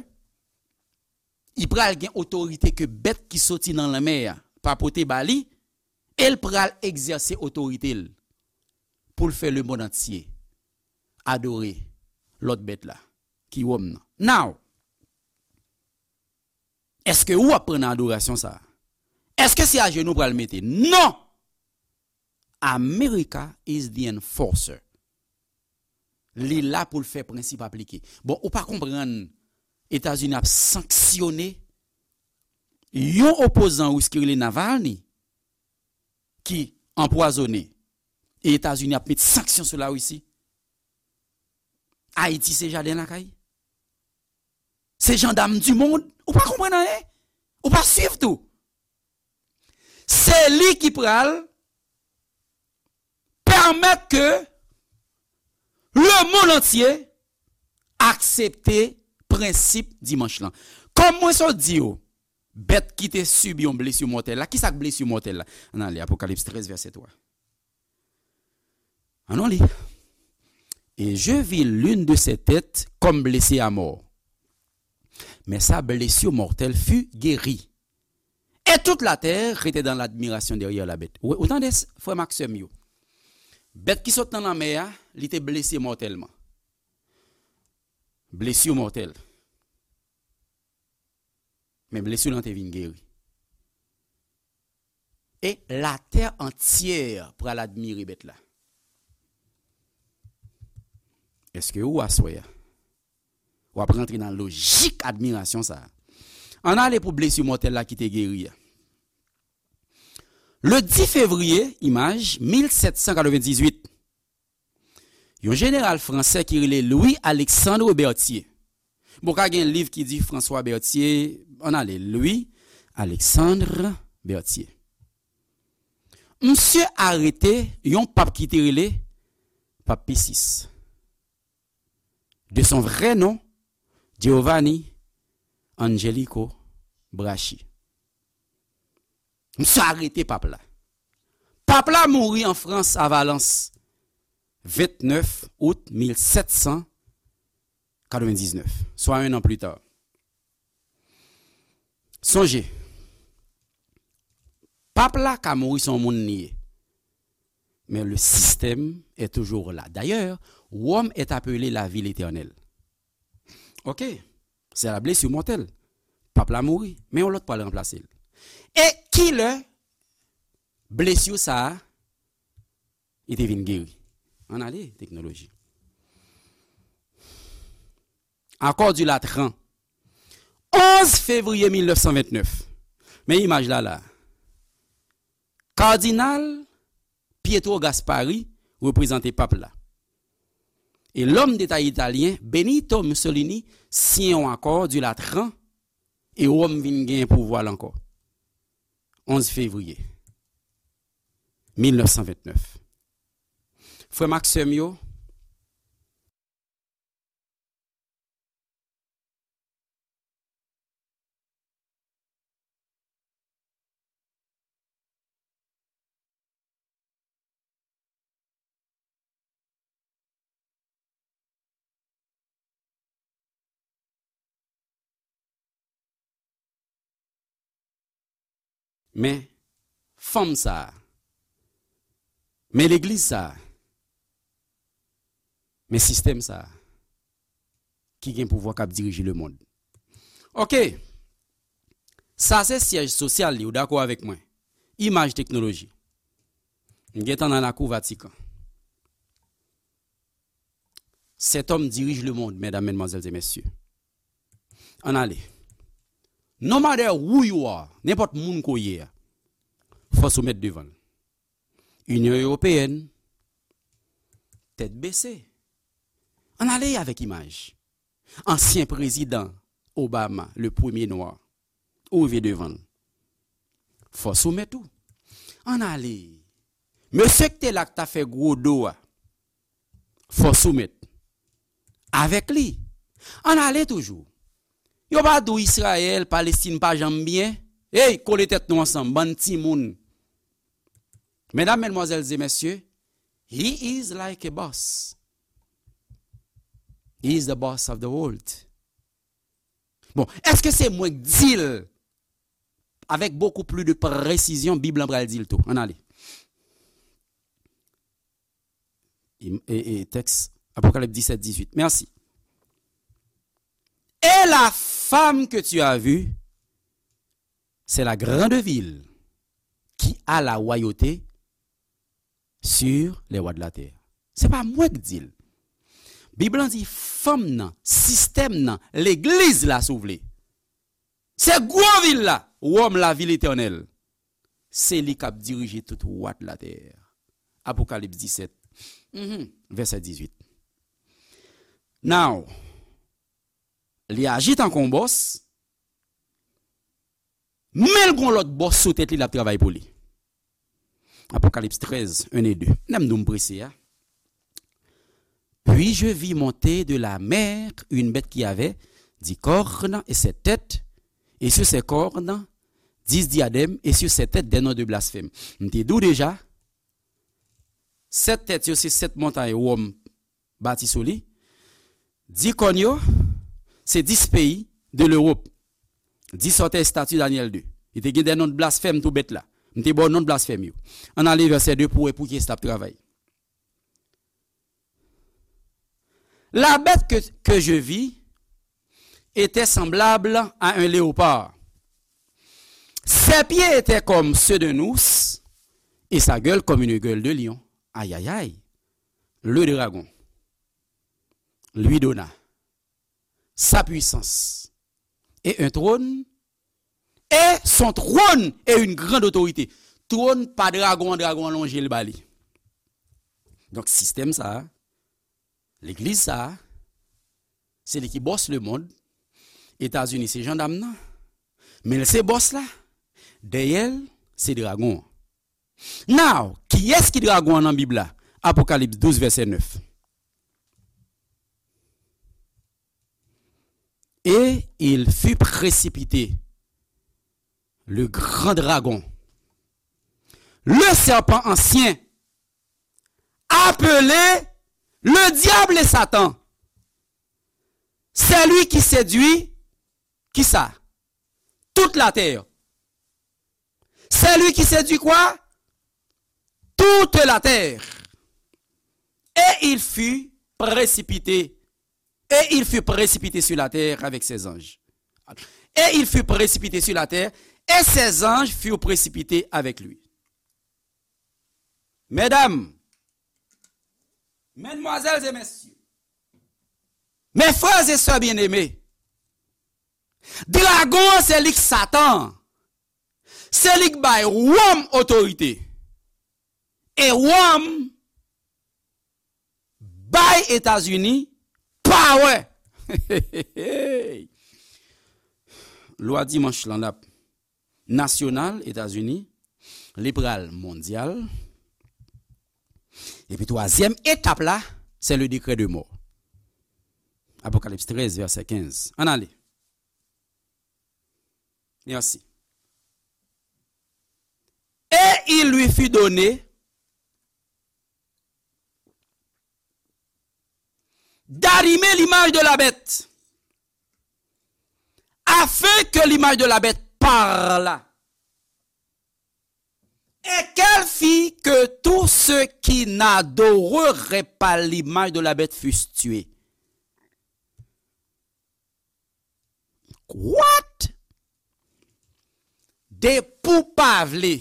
li pral gen otorite ke bèt ki soti nan lanmè a pa pote ba li, e l pral egzèse otorite l pou l fè lemonn antye adore lòt bèt la, ki wòm nan. Now, Èske ou ap pran nan adorasyon sa a? Èske se ajenou pral mete? Non! America is the enforcer. Li la pou l fè prensip aplike. Bon, ou pa konprann Etazini ap sanksyone yon opozan ris ki rele Navalny, ki anpwazonnen, e Etazini ap met sanksyon sou Larisi. Ayiti se jaden lakay. Se jandam di mond. Ou pa konprann anyen. Ou pa swiv tou. Se li ki pral pèmèt ke lemonn antye aksepte prensip dimanch lan. Kòm mwen sot di w, bèt ki te sibi yon blesi mòtèl la, ki sa k blesi mòtèl la? Ann ale, Apokalips trèz, vèsè twa. Ann nou li. Et je vis l'une de ces têtes comme blessée à mort. Mais sa blessure mortelle fut guérie. Et toute la terre était dans l'admiration derrière la bête. Ou, ou tande, frè m ak sè m yo? Bèt ki sot nan lanmè a, li te blese mòtèlman. Blesi mòtèl. Men blesi lan te vin geri. E latè antyè pral admire bèt la. Èske ou, aswè a, w ap rantre nan lojik admirasyon sa a? Ann ale pou blesi mòtèl la ki te geri a. Le dix février, imaj, mil sèt san katrevendizuit, yon jeneral fransè ki rele Louis Alexandre Berthier. Bon, ka gen liv ki di François Berthier, ann ale, Louis Alexandre Berthier. Misye arete yon pap ki te rele Pap Pi sis. De son vrai nom, Giovanni Angelico Braschi. Misye arete pap la. Pap la mouri an Frans, a Valence, vennèf out mil sèt san katrevendiznèf, swa un an pli ta. Sonje, pap la ka mouri, se yon moun li ye. Mais le système est toujours là. D'ailleurs, Rome est appelée la ville éternelle. Ok, c'est la blessure mortelle. Pap la mouri, men yon lòt pral ranplase l. E kilè blesi sa a, li te vin geri? Ann ale, teknoloji. Accord du Latran, onze février mil nèf san vennèf. Men imaj la la. Kardinal Pietro Gasparri reprezante pap la. E lòm deta italyen Benito Mussolini siyen yon akò di Latran e Wòm vin gen pouvwa l ankò. Onz fevriye mil nèf san vennèf. Frè m ak sè m yo, men fanm sa a, men legliz sa a, men sistèm sa a ki gen pouvwa k ap dirije lemonn. Ok. Sa se syèj sosyal li, ou dakò avèk mwen? Imaj teknoloji. M gentan nan lakou Vatikan. Cet homme dirige le monde, mesdames, mesdemoiselles et messieurs. Ann ale. No matter who you are, nenpòt moun ke w ye a, fò w soumèt devan l. Inyon Ewopeyèn, tèt bese. Ann ale avèk imaj. Ansyen prezidan Obama, le premye nwa, ou rive devan l. Fò w soumèt ou. Ann ale. Mesye ki te la k ta fè gwo do a, fò w soumèt avèk li. Ann ale toujou. Yo pa di w Izrayèl, Palestin pa janm byen. Ey, kole tèt nou ansanm, bann timoun. Mesdames, mesdemoiselles et messieurs, he is like a boss. He is the boss of the world. Bon, èske se mwen k di l avèk beaucoup plus de précision? Bib lan pral di l tou. Ann ale. E, e, e, tèks Apokalips disèt dizuit. Mèsi. Et la femme que tu as vue C'est la grande ville qui a la royauté sur les rois de la terre. Se pa mwen k di l. Bib lan di fanm nan, sistèm nan, legliz la, si w vle. Se gwo vil la, Wòm, la ville éternelle. Se li k ap dirije tout wa de la tè. Apokalips disèt, mhm, vèsè dizuit. Now, li aji tankou yon bòs, men l gon lòt bòs sou tèt li, l ap travay pou li. Apocalypse treize, un et deux. Lè m di w m prese a. Puis je vis monter de la mer une bête qui avait dix cornes et sept têtes, et sur ses cornes dix diadèmes, et sur ses têtes des noms de blasphème. M te di w deja, sèt tèt yo se sèt montay Wòm bati sou li. Dis kòn yo, se dis peyi de Lewòp. Dis sòtèy estati Danyèl de. Li te gen de non de blasfèm tou bèt la. M te ba w non de blasfèm yo. Ann ale vèsè de pou w wè pou kiyès l ap travay. La bête que, que je vis était semblable à un léopard. Ses pieds étaient comme ceux d'un ours et sa gueule comme une gueule de lion. Aïe, aïe, aïe. Le dragon lui donna sa puissance et un trône, et son trône et une grande autorité. Twòn pa dragon an, dragon an lonje l ba li. Donk, sistèm sa a, legliz sa a, se li ki bòs lemonn. Etazini se jandam nan, men l se bòs la. Dèyè l, se dragon an. Now, kiyès ki dragon an nan Bib la? Apokalips douz, vèsè nèf. Et il fut précipité, le grand dragon, le serpent ancien, appelé le diable et Satan, celui qui séduit, qui ça? Toute la terre. C'est lui qui séduit quoi? Toute la terre. Et il fut précipité. Et il fut précipité sur la terre avec ses anges. Et il fut précipité sur la terre, et ses anges furent précipités avec lui. Medam, medmwazèl e mesye, mes frères et sœurs bien-aimés, dragon an se li k Satan. Se li k bay Wòm otorite. E Wòm bay Etazini power. Lwa dimanch lan l ap nasyonal Etazini, li pral mondyal. Epi twazyèm etap la, se le décret de mort. Apokalips trèz, vèsè kenz. Ann ale. Merci. Et il lui fut donné d'animer l'image de la bête, afin que l'image de la bête parlât, et qu'elle fît que tous ceux qui n'adoreraient pas l'image de la bête fussent tués. What? Depi w pa vle,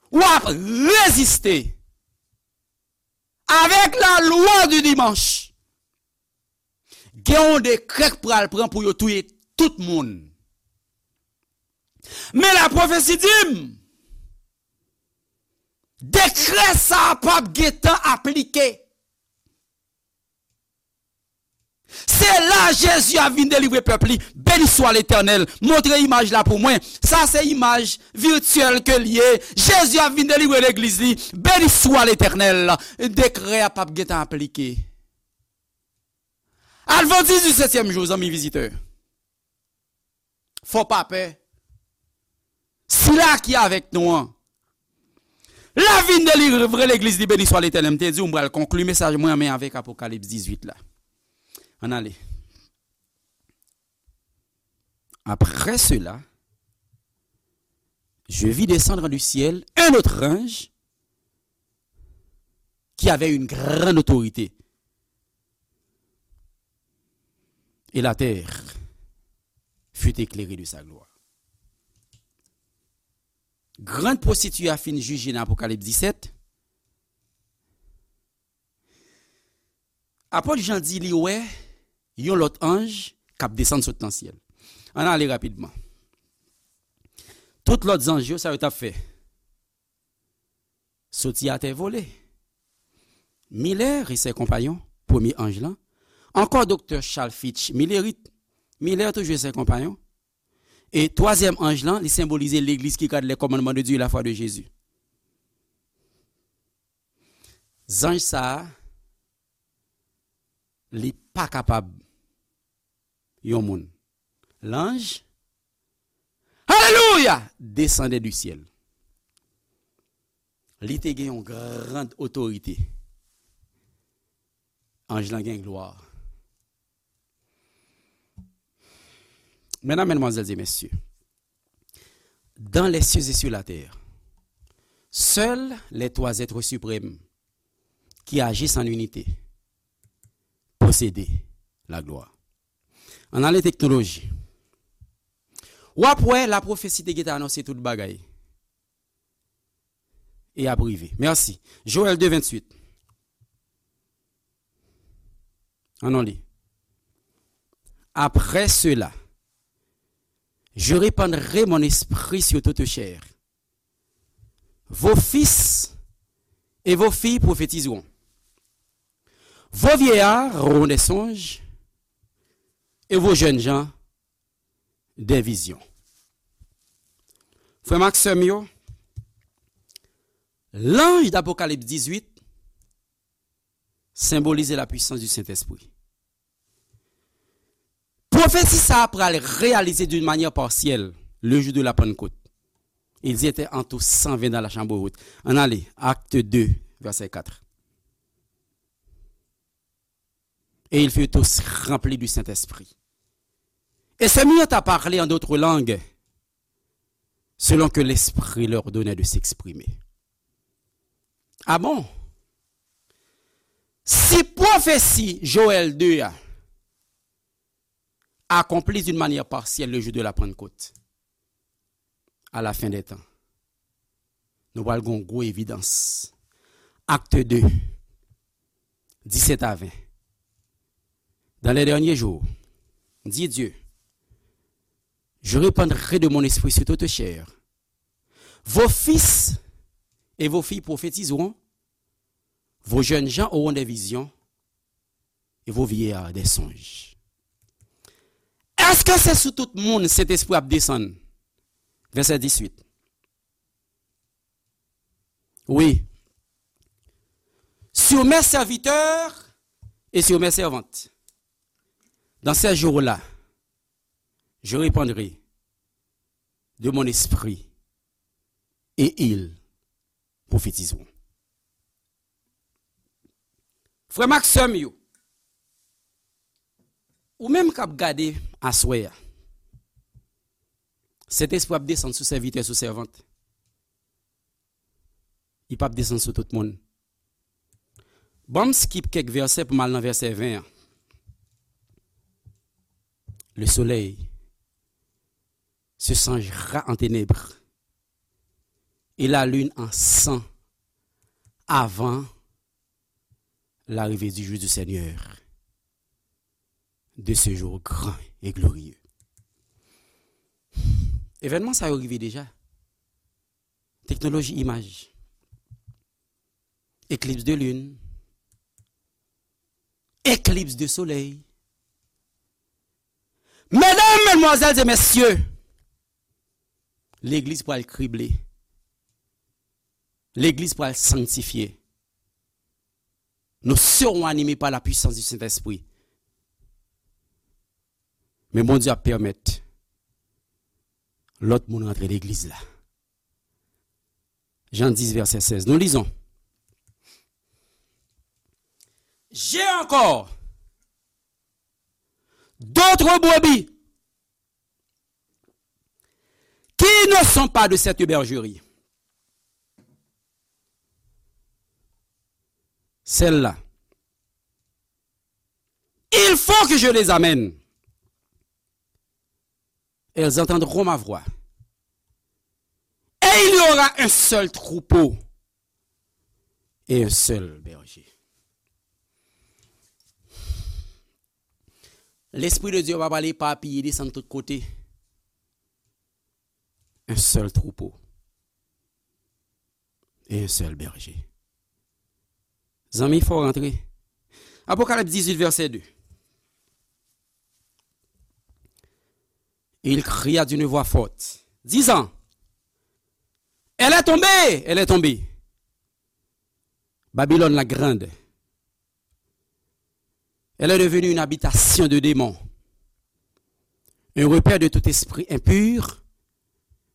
w ap reziste avèk la lwa di dimanch. Gen yon dekrè k pral pran pou yo touye tout moun. Men lapwofesi di m, dekrè sa a p ap gentan aplike. Se la Jezi ap vin delivre pèp li. Beni swa Letènèl. Montre imaj la pou mwen. Sa se imaj vityèl ke l ye. Jezi ap vin delivre legliz li. Beni swa Letènèl. Dekrè a p ap gentan aplike. Advantis di setyèm jou, zanmi vizitè. Fò pa pè. Sila ki avèk nou an, l ap vin delivre legliz li, beni swa Letènèl. M te di w m pral konkli mesaj mwen men avèk Apokalips dizuit la. Ann ale. Après cela, je vis descendre du ciel un autre ange qui avait une grande autorité. Et la terre fut éclairée de sa gloire. Grann pwostitiye a fin jije nan Apokalips disèt, apot Jan di li wè yon lòt anj k ap desann sot nan syèl. Ann ale rapidman. Tout lòt zanj yo, sa yo t ap fè? Soti atè vole. Miller et ses compagnons, premye anj lan. Ankò doktè Charles Fitch Millerit. Miller toujou e ses compagnons. E twazyèm anj lan, li senbolize legliz ki gad les commandements de Dieu et la foi de Jésus. Zanj sa a, li pa kapab yon moun. L'ange, alelouya, descendait du ciel. Li te gen yon grand otorite. Anj lan gen glwa. Mesdames, mesdemoiselles et messieurs, dans les cieux et sur la terre, seuls les trois êtres suprêmes qui agissent en unité possédaient la gloire. Ann ale teknoloji. W ap wè lapwofesi te gentan anonse tout bagay. E ap rive. Mèsi. Joël deux vingt-huit. Ann nou li. Après cela, je répandrai mon esprit sur toute chair. Vos fils et vos filles prophétiseront. Vos vieillards auront des songes et vos jeunes gens des visions. Frè m ak sè m yo, l'ange d'Apocalypse dix-huit symbolize la puissance du Saint-Esprit. Pwofesi sa a pral reyalize d'une manière partielle le jour de la Pentecôte. Ils étaient en tout cent vingt dans la chambre haute. Ann ale, Actes deux, verset quatre. Et ils furent tous remplis du Saint-Esprit. Et se mirent à parler en d'autres langues, selon que l'Esprit leur donnait de s'exprimer. Ah bon? Si pwofesi Joël deux a accompli d'une manière partielle le jour de la Pentecôte, à la fin des temps, nou pral gen yon gwo evidans. Actes deux, dix-sept à vingt. Dans les derniers jours, dit Dieu, je répandrai de mon esprit sur toute chair. Vos fils et vos filles prophétiseront, vos jeunes gens auront des visions, et vos vieillards des songes. Èske se sou tout moun Sentespri ap desann? Vèsè dis uit. Oui. Sur mes serviteurs et sur mes servantes. Dans ces jours-là, je répandrai de mon esprit et ils prophétiseront. Frè m ak sè m yo, ou menm k ap gade aswè a, Sentespri ap desann sou sèvitè, sou sèvant. Li p ap desann sou tout moun. Ban m skip kèk vèsè pou m al nan vèsè ven an. Le soleil se changera en ténèbres et la lune en sang avant l'arrivée du jour du Seigneur, de ce jour grand et glorieux. Evènman sa yo rive deja. Teknoloji imaj. Eklips de lin. Eklips de solèy. Medam, medmwazèl e mesye, legliz pral krible. Legliz pral sanktifye. Nous serons animés par la puissance du Saint-Esprit. Men Bondye ap pèmèt lòt moun rantre legliz la. Jan dis, vèsè sèz. Nous lisons. J'ai encore d'autres brebis qui ne sont pas de cette bergerie. Celles-là, il faut que je les amène. Elles entendront ma voix. Et Il y aura un seul troupeau et un seul berger. Lespri de Dye va pale epapiye, desann tout kote. Un seul troupeau et un seul berger. Zanmi, fò w rantre. Apokalips dizuit, vèsè de. Et il cria d'une voix forte, disant, elle est tombée, elle est tombée, Babylone la grande. Elle est devenue une habitation de démons, un repère de tout esprit impur,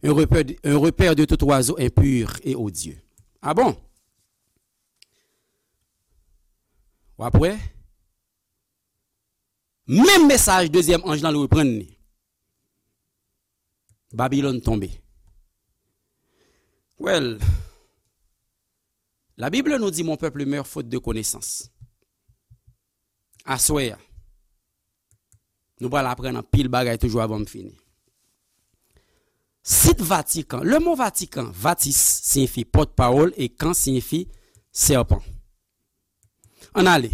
un repère, un repère de tout oiseau impur et odieux. Ah bon? W ap wè? Menm mesaj dezyèm anj lan reprann li. Babilòn tonbe. Well, la Bible nous dit, mon peuple meurt faute de connaissance. Aswè a, nou pral aprann anpil bagay toujou avan m fini. Sit Vatikan. Le mo Vatikan, vatis siyifi pòtpawòl e kan siyifi sèpan. Ann ale.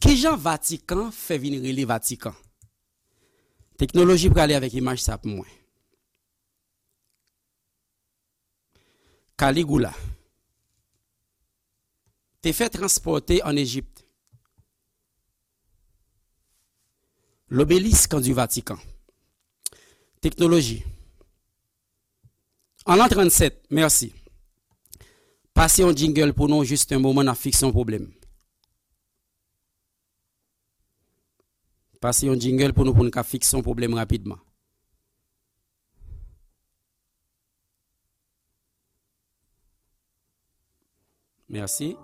Kijan Vatikan fè vin rele Vatikan? Teknoloji prale avèk imaj sa pou mwen. Caligula te fè transpòte ann Ejip l'obélisque du Vatican. Teknoloji. An lan trannsèt, mèsi. Pase yon jingle pou nou, jis yon moman, n ap fikse yon pwoblèm. Pase yon jingle pou nou, pou n ka fikse yon pwoblèm rapidman. Mèsi.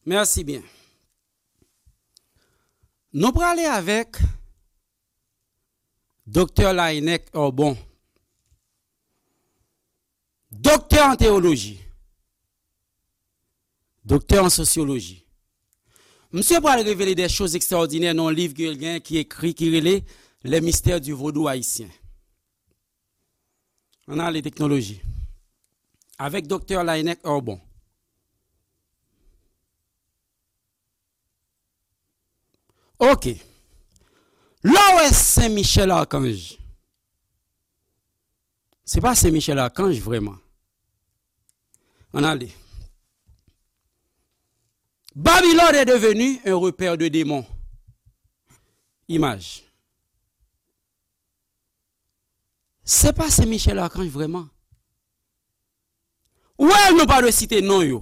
Mèsi byen. Nou prale avèk Doktè Laennec Herbon, doktè an teyoloji, doktè an sosyoloji. Misye pral revele de choz ekstraòdinè nan yon liv ke l gen ki ekri, ki rele Les Mystères du Vaudou Haïtien. Ann ale teknoloji. Avèk Doktè Laennec Herbon. Ok. Lè w wè Sen Michèl Akanj, se pa Sen Michèl Akanj vrèman. Ann ale. Babylone est devenue un repère de démons. Imaj. Se pa Sen Michèl Akanj vrèman. Wè, nou pa dwe site non yo.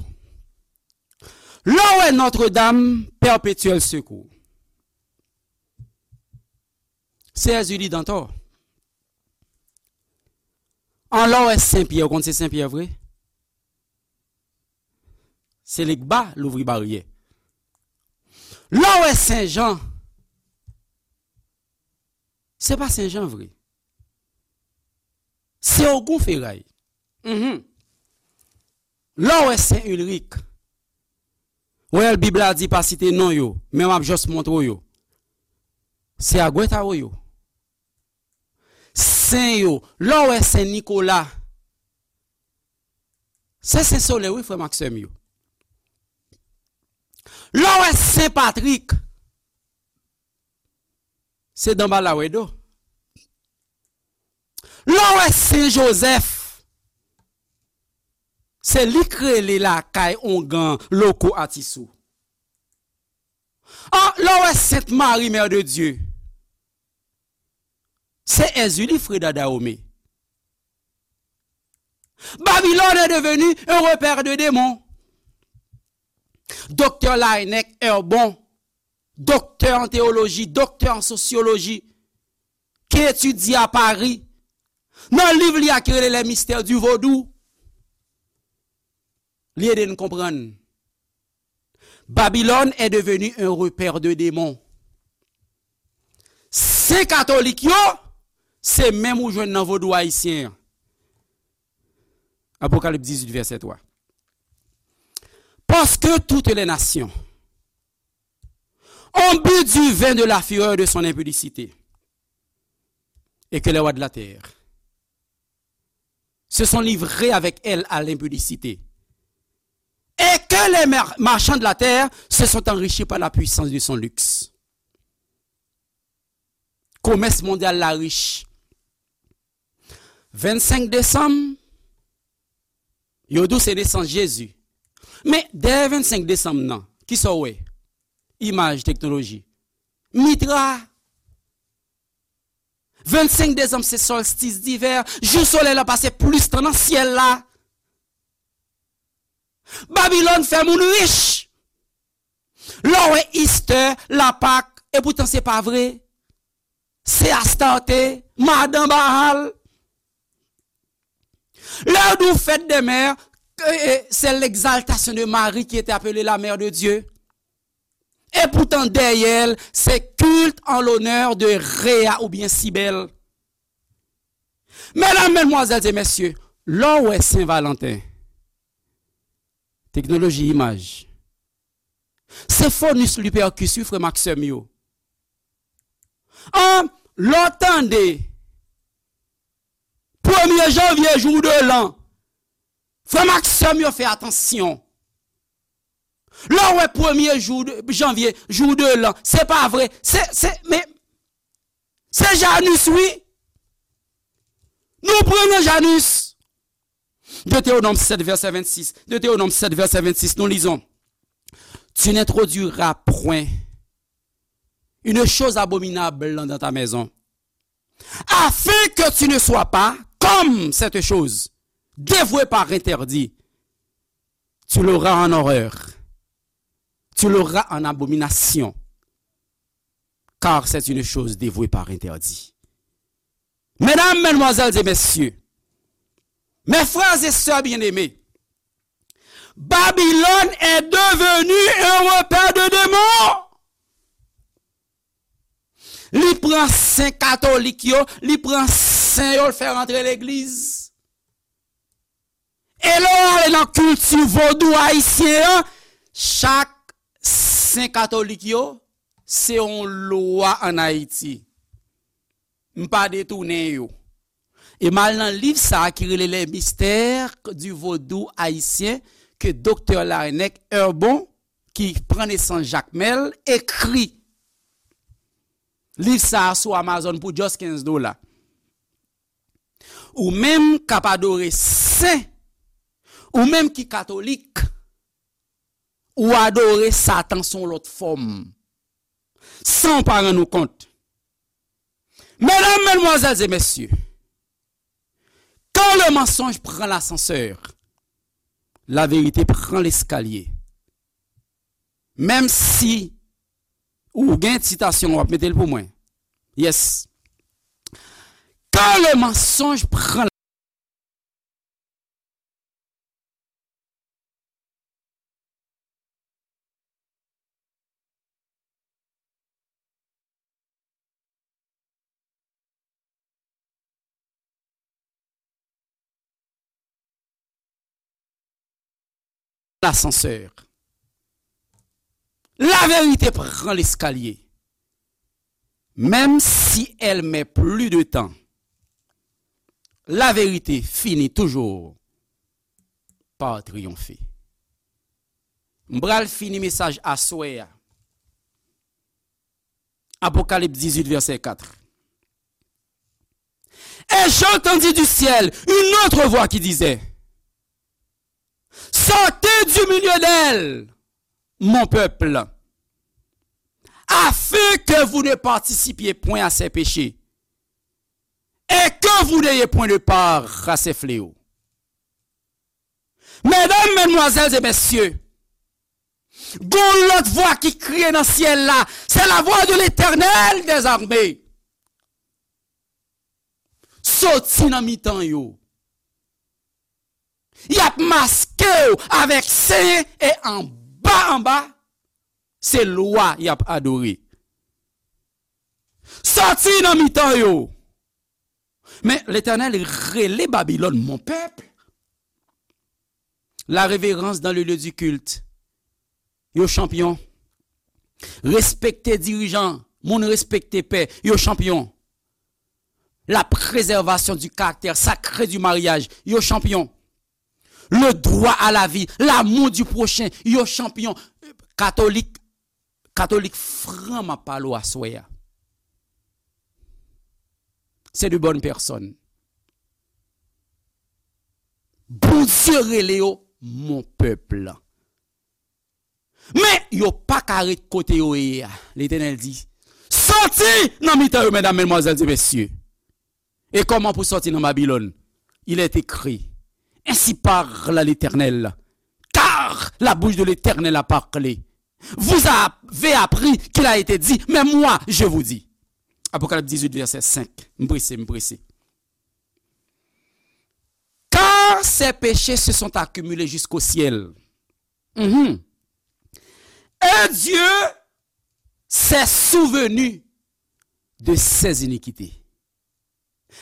Lè w wè Notre Dame Perpétuel Secours, se Èzili Dantò. An lè w wè Sen Pyè, ou konn se Sen Pyè vre? Se Legba louvri baryè. Lè w wè Sen Jan, se pa Sen Jan vre. Se Ogon Feray. Mhm. Lè w wè Sen Ilrik, wè Bib la di pa site non yo, men m ap jis montre w yo. Se Agwètawo yo. Sen yo, lè w wè Sen Nikola, se Sen Solèy, wi, frè m ak sè m yo. Lè w wè Sen Patrik, se Danbala Wèdo. Lè w wè Sen Jozèf, se li k rele lakay ongan loko Atisou. An, lè w wè Sent Mari, Mère de Dieu, se Èzili Freda Dahomey. Babylone est devenue un repère de démons. Doktè Laennec Herbon, doktè an teyoloji, doktè an sosyoloji, ki etidye a Pari, nan liv li a ki rele Les Mystères du Vaudou, li ede n konprann. Babylone est devenue un repère de démons. Sen katolik yo, se menm ou jwenn nan vodou ayisyen an. Apocalypse dix-huit, verset trois. Parce que toutes les nations ont bu du vin de la fureur de son impudicité, et que les rois de la terre se sont livrés avec elle à l'impudicité, et que les mar- marchands de la terre se sont enrichis par la puissance de son luxe. Komès mondyal la rich. Vennsenk desanm, yo di w se nesans Jezi. Men dèyè vennsenk desanm nan, kisa w wè? Imaj, teknoloji. Mitra. Vennsenk desanm se solstis divè, jou solèy la pase plis tan nan syèl la. Babilòn fè moun rich. Lè w wè Easter, Lapak, epoutan se pa vre. Se Astarte, madan Baal. Lè w di w fèt dè mè, e, e, c'est l'exaltation de Marie qui était appelée la mère de Dieu. Epoutan dèyè l, se culte en l'honneur de Rhea oubyen Cybèle. Medam, medmwazèl e mesye, lè w wè Sen Valanten, teknoloji imaj, se Faunus Lupercus, wi, frè m ak sè m yo. An, lè w tande premye janvye, jour de l'an, frè m ak sè m yo, fè atansyon. Lè w wè premye jou de, janvye, jour de l'an, se pa vre. Se, se, men, se Janus, wi. Nou pran nan Janus. Deutéronome sept, verset vingt-six. Deutéronome sept, verset vingt-six, nous lisons: Tu n'introduiras point une chose abominable dans ta maison, afin que tu ne sois pas comme cette chose, dévouée par interdit. Tu l'auras en horreur. Tu l'auras en abomination, car c'est une chose dévouée par interdit. Medam, medmwazèl e mesye, mes frères et sœurs bien-aimés, Babylone est devenue un repère de démons. Li pran sen katolik yo, li pran sen yo, l fè rantre legliz. E lè w ale nan kilti vodou ayisyen an, chak sen katolik yo, se yon lwa ann Ayiti. M pa detounen yo. E m al nan liv sa a ki rele Les mystères du vaudou haïtien ke Doktè Laennec Herbon, ki pran nesans Jakmèl, ekri. Liv sa a sou Amazon pou just kenz dola. Ou menm k ap adore sen, ou menm ki katolik, ou adore Satan sou yon lòt fòm, san w pa rann ou kont. Mesdames, mesdemoiselles et messieurs, quand le mensonge prend l'ascenseur, la vérité prend l'escalier. Menm si ou gen sitasyon, w ap mete l pou mwen. Yes. Quand le mensonge prend l'ascenseur. La vérité prend l'escalier. Même si elle met plus de temps, la vérité finit toujours par triompher. M pral fini mesaj aswè a. Apokalips dix-huit, verset quatre. Et j'entendis du ciel une autre voix qui disait, sortez du milieu d'elle, mon peuple, afin que vous ne participiez point à ses péchés, et que vous n'ayez point de part à ses fléaux. Medam, medmwazèl e mesye, gon lòt vwa ki kriye nan syèl la, c'est la voix de l'Éternel des armées. Soti nan mitan yo. Y ap maske w avèk sen e anba anba, se lwa y ap adore. Soti nan mitan yo. Men Letènèl rele Babilòn mon pèp. La révérence dans le lieu du culte. Yo chanpyon. Respekte dirijan, moun respekte pè, yo chanpyon. La préservation du caractère sacré du mariage, yo chanpyon. Le droit à la vie, l'amour du prochain, yo chanpyon. Katolik, katolik fran m ap pale w aswè a. Se de bòn pèsòn. Bondye rele yo mon pèp. Men yo pa ka ret kote yo ye a. Letènèl di, sòti nan mitan yo, medam, medmwazèl e mesye. E kòman pou sòti nan Babilòn? Il est écrit, ainsi parle l'Éternel, car la bouche de l'Éternel a parlé. Vous avez appris qu'il a été dit, mais moi, je vous dis. Apocalypse dix-huit, verset cinq. M prese, m prese. Car ses péchés se sont accumulés jusqu'au ciel. Mhm. Et Dieu s'est souvenu de ses iniquités.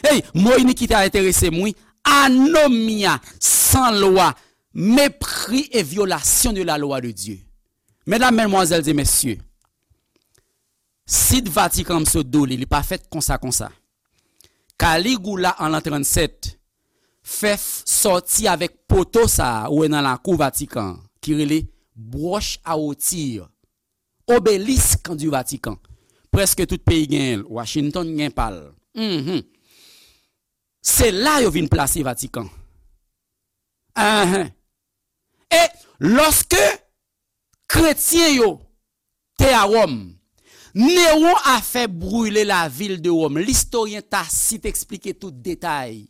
Hey, mo inikite a enterese m, wi. Anomia, san lwa, mépris et violation de la loi de Dieu. Medam, medmwazèl e mesye, sit Vatikan m sot do li, li pa fèt konsa konsa. Caligula an lan trannsèt fè f-, sòti avèk poto sa a ou wè nan lakou Vatikan an, ki rele Broche à Rôtir, Obélisque du Vatican. Prèske tout peyi genyen l. Washington gen pa l. Mhm. Se la yo vin plase Vatikan. Ahan. E lòske kretyen yo te a Wòm, Néron a fait brûler la ville de Rome. Listoryen Tasit eksplike tout detay.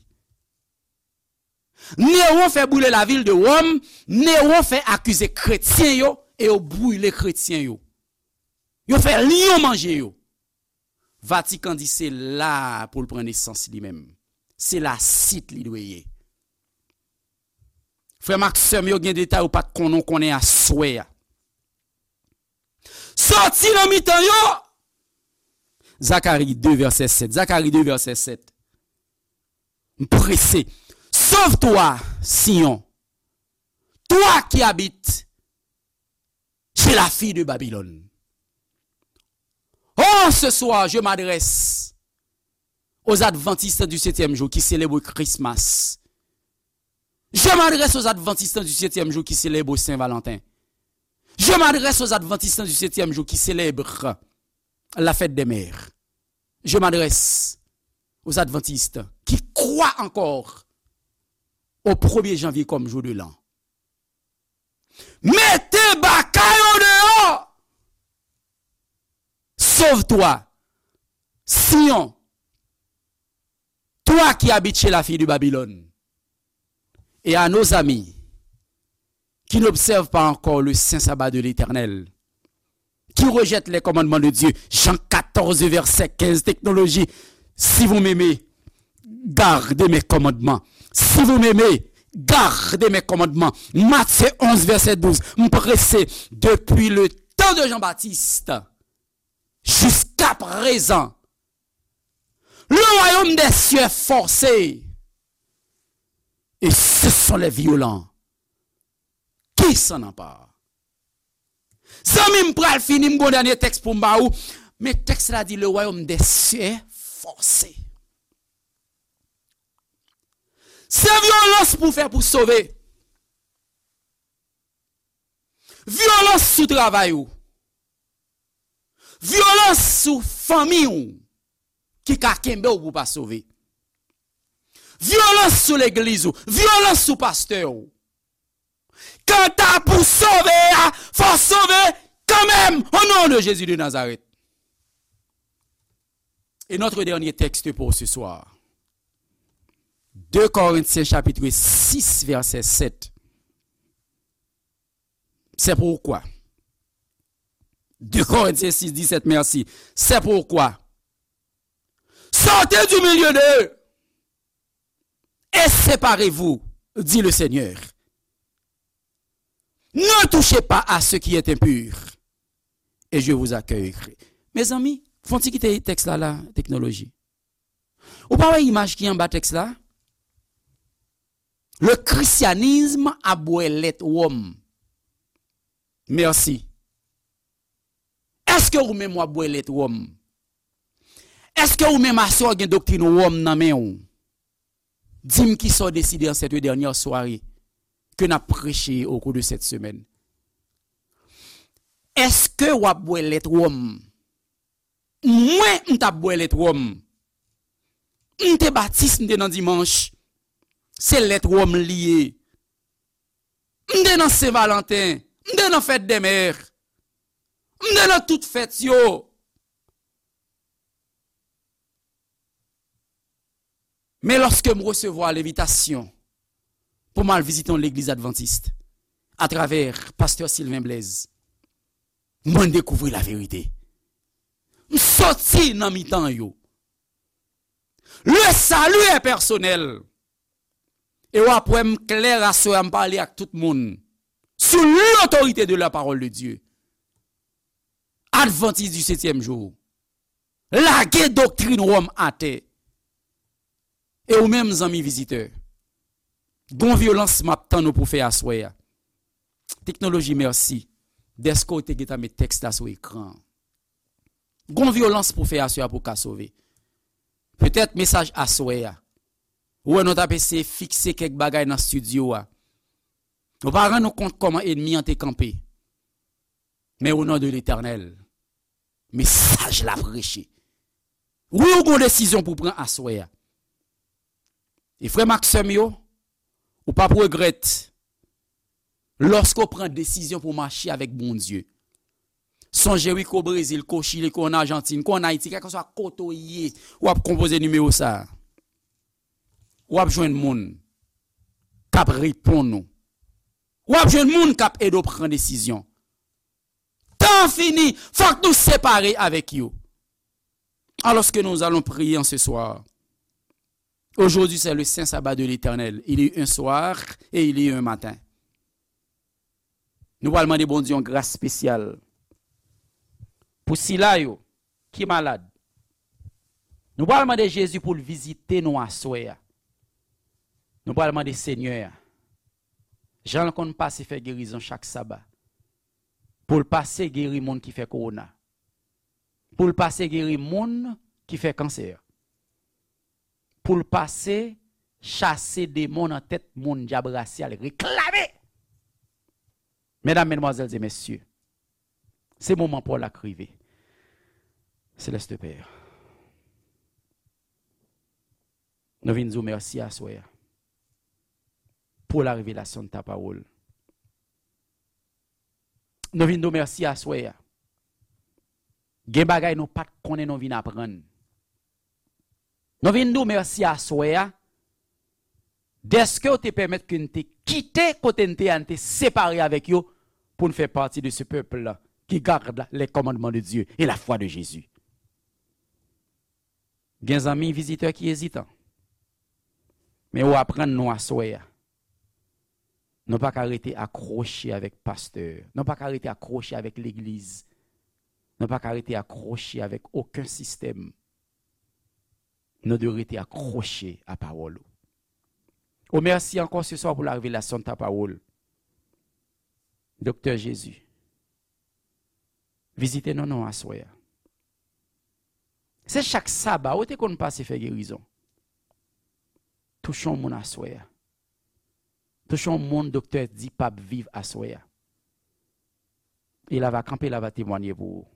Néron fè brile lavil de Wòm, Néron fè akize kretyen yo e yo brile kretyen yo. Yo fè lyon manje yo. Vatikan di se la pou l pran nesans li menm. Se la sit li dwe ye. Frè m ak sè m yo, gen detay ou pa t konnen, w konnen aswè a. Sòti nan mitan yo. Zakari de vèsè sèt. Zakari de vèsè sèt. M prese. Sauve-toi, Sion, toi qui habites chez la fille de Babylone. Oh, ce soir, je m'adresse aux adventistes du septième jour qui célèbrent Christmas. Je m'adresse aux adventistes du septième jour qui célèbrent Saint-Valentin. Je m'adresse aux adventistes du septième jour qui célèbrent la fête des mères. Je m'adresse aux adventistes qui croient encore au premier janvier comme jour de l'an. Mete baka yo deyò. Sauve-toi, Sion, toi qui habites chez la fille de Babylone. Et à nos amis qui n'observent pas encore le saint sabbat de l'Éternel, qui rejettent les commandements de Dieu. Jean quatorze, verset quinze, technologie. Si vous m'aimez, gardez mes commandements. Si vous m'aimez, gardez mes commandements. Matthieu onze, verset douze. M prese, depuis le temps de Jean-Baptiste jusqu'à présent, le royaume des cieux est forcé. Et ce sont les violents qui s'en emparent. Zanmi, m pral fini, m gon dènye tèks pou m ba ou. Men tèks la di, le royaume des cieux est forcé. Se vyolans pou fè pou sove. Vyolans sou travay ou. Vyolans sou fanmi ou ki ka kenbe w pou pa sove. Vyolans sou legliz ou. Vyolans sou pastè ou. Kanta pou sove a, fò sove kanmenm, au nom de Jésus de Nazareth. Et notre dernier texte pour ce soir, deux Corinthiens chapitre six, verset sept. C'est pourquoi. Deux Corinthiens six, dix-sept, merci. C'est pourquoi. Sortez du milieu d'eux et séparez-vous, dit le Seigneur. Ne touchez pas à ce qui est impur, et je vous accueillerai. Mezanmi, fon ti kite tèks la la, teknoloji. Ou pa wè imaj ki anba tèks la? Le christianisme ap bwè lèt wòm. Mèsi. Èske ou menm w ap bwè lèt wòm? Èske ou menm aswè w gen doktrin wòm nan men w? Di m kisa w deside en cette dernière soirée ke n ap preche au cours de cette semaine. Èske w ap bwè lèt wòm? Mwen, m t ap bwè lèt wòm. M te batis, m te nan dimanch. Se lèt wòm li ye. M te nan Sen Valanten. M te nan fèt dè mè. M te nan tout fèt yo. Men lòske m resevwa lenvitasyon pou m al vizite yon legliz advantis atravè pastè Sylvain Blaise, mwen dekouvri laverite. M soti nan mitan yo. Le salut est personnel. E w ap wè m klè aswè a, m pale ak tout moun sou l'autorité de la parole de Dieu. Advantis di setyèm jou. Lage doktrin wòm atè. E ou menm, zanmi vizitè, gon vyolans m ap tann ou pou fè aswè a. Teknoloji, mèsi dèske w te gentan met tèks la sou ekran an. Gon vyolans pou fè aswè a pou w ka sove. Petèt mesaj aswè a, ou wè nou t ap eseye fikse kèk bagay nan estidyo a. Nou pa rann nou kont kòman ènmi an te kanpe. Men o non de Letènèl, mesaj la preche. Wi, ou gon desizyon pou pran aswè a. E frè m ak sè m yo, ou p ap regrèt lòske w pran desizyon pou w mache avèk Bondye. Sonje wi, ke w Brezil, ke w Chili, ke w ann Ajantin, ke w ann Ayiti, kèlkeswa kote w ye, w ap konpoze nimewo sa a. W ap jwenn moun k ap reponn ou. W ap jwenn moun k ap ede w pran desizyon. Tan an fini, fòk nou separe avèk yo. Alors que nous allons prier en ce soir, Aujourd'hui, c'est le saint sabbat de l'Éternel. Il y a eu un soir et il y a eu un matin. Nou pral mande Bondye yon gras espesyal. Pou sila yo ki malad, nou pral mande Jezi pou l vizite nou aswè a. Nou pral mande Senyè a, jan l konn pase fè gerizon chak saba, pou l pase geri moun ki fè kowona, pou l pase geri moun ki fè kansè, pou l pase chase demon nan tèt moun dyab rasyal reklame. Medam, medmwazèl e mesye, se moman pa w la k rive. Seleste Pè, nou vin di w mèsi aswè a pou la revelasyon de ta pawòl. Nou vin di w mèsi aswè a. Gen bagay nou pa t konnen nou vin aprann. Nou vin di w mèsi aswè a, dèske w te pèmèt ke n te kite kote n te ye a, n te separe avèk yo, pou n fè pati de ce peuple qui garde les commandements de Dieu et la foi de Jésus. Gen zanmi vizitè ki ezitan. Men ou aprann nou aswè a. Nou pa ka rete akwoche avèk pastè. Nou pa ka rete akwoche avèk legliz. Nou pa ka rete akwoche avèk okenn sistèm. Nou dwe rete akwoche a pawòl ou. O mèsi ankò se swa pou la revelasyon de ta pawòl. Doktè Jezi, vizite nou non aswè a. Se chak saba ou te konn pase fè gerizon. Touche yon moun aswè a. Touche yon moun doktè di p ap viv aswè a. E la va kanpe, la va temwanye pou ou.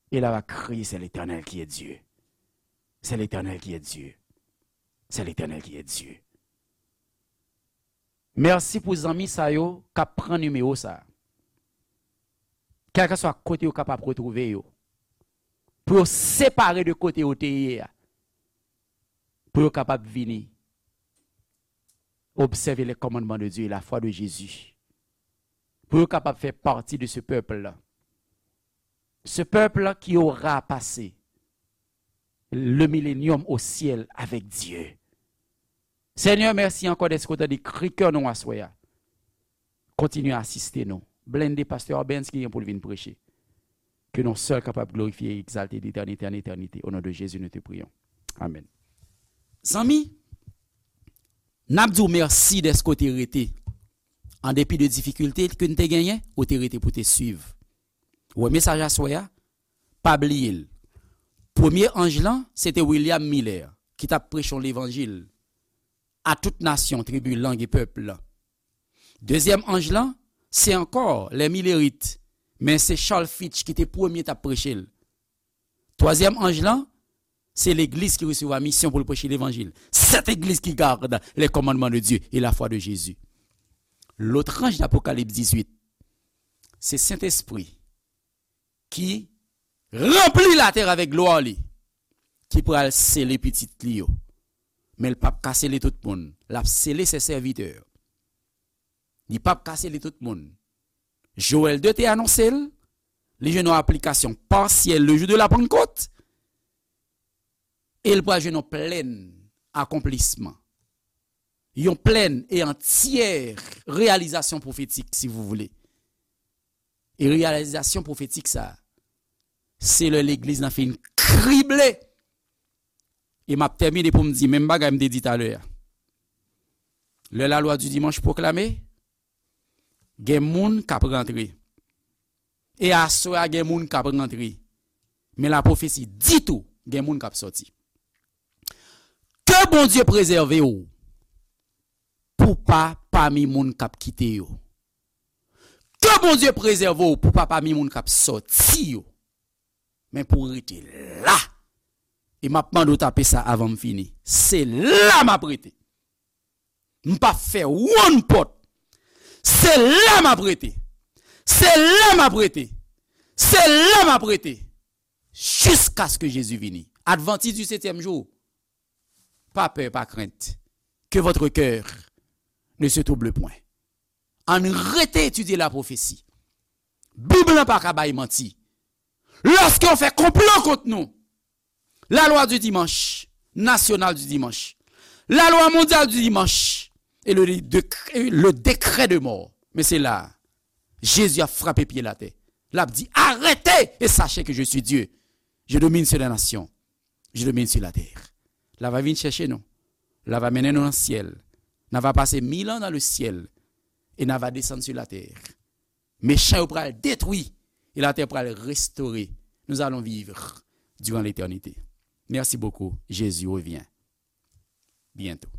E la va kriye, c'est l'Éternel qui est Dieu. C'est l'Éternel qui est Dieu. C'est l'Éternel qui est Dieu. Mèsi pou zanmi sa yo k ap pran nimewo sa. Kèlkeswa kote yo kapab retwouve yo. Pou yo separe de kote yo te ye a. Pou yo kapab vini observer les commandements de Dieu et la foi de Jésus. Pou yo kapab fè pati de ce peuple-là. Ce peuple qui aura passé le millénium au ciel avec Dieu. Senyè, mèsi ankò dèske w tande kri kè nou aswè a. Kontinye asiste nou. Blende pastè Benz ki gen pou l vin preche. Ke non sèl kapab glorifye e egzalte de etènite an etènite. O non de Jezi, nou te priyons. Amèn. Zanmi, n ap di w mèsi dèske w te rete. An depi de difikilte ke n te genyen, ou te rete pou te swiv. Ou wè mesaj aswè a? Pa bliye l. Premye anj lan, se te William Miller, ki t ap preche yon levanjil a tout nasyon, tribi, lang e pèp lan. Dezyèm anj lan, se ankò lè Milerit, men se Charles Fitch ki te premye t ap preche l. Twazyèm anj lan, se legliz ki resevwa misyon pou l preche levanjil. Cette église qui garde les commandements de Dieu et la foi de Jésus. Lòt anj Apokalips dizuit, se Sentespri ki ranpli latè avèk glwa li, ki pral sele pitit li yo. Men l p ap ka sele tout moun. L ap sele se sèvitè. Li p ap ka sele tout moun. Joël de te anonse l, li jwenn yon aplikasyon pasyèl le jou de la Pannkòt, e l pral jwenn yon plèn akonplisman. Yon plèn e antyè reyalizasyon pwofetik, si vous voulez. E reyalizasyon pwofetik sa, se lè legliz lan fin krible. E m ap tèmine pou m di menm bagay m te di talè a. Lè lalwa di dimanch pwoklame, gen moun k ap rantre. E aswè a, gen moun k ap rantre. Men lapwofesi di tou, gen moun k ap sòti. Ke Bondye prezève w pou pa pami moun k ap kite yo. Ke Bondye prezève w pou pa pami moun k ap sòti yo. Men pou w rete la. E m ap mande w tape sa avan m fini. Se la m ap rete. M p ap fè wonn pòt. Se la m ap rete. Se la m ap rete. Se la m ap rete. Jiskaske Jezi vini. Advantis di setyèm jou. Pa pè, pa krent. Que votre cœur ne se trouble point. Ann rete etidye lapwofesi. Bib lan pa ka bay manti. Lòske yo fè konplo kont nou, lalwa di dimanch, national du dimanche, la loi mondiale du dimanche et le, décret, le décret de mort. Men se la, Jezi ap frape pye l atè. L ap di, arrêtez et sachez que je suis Dieu. Je domine sur les nations. Je domine sur la terre. L ap vin chèche nou. L ap mennen nou nan syèl. N ap pase mil an nan le ciel. E n ap desann sur la terre. Mechan yo pral detwi. E la terre pral restore. Nous allons vivre durant l'éternité. Merci beaucoup. Jésus revient bientôt.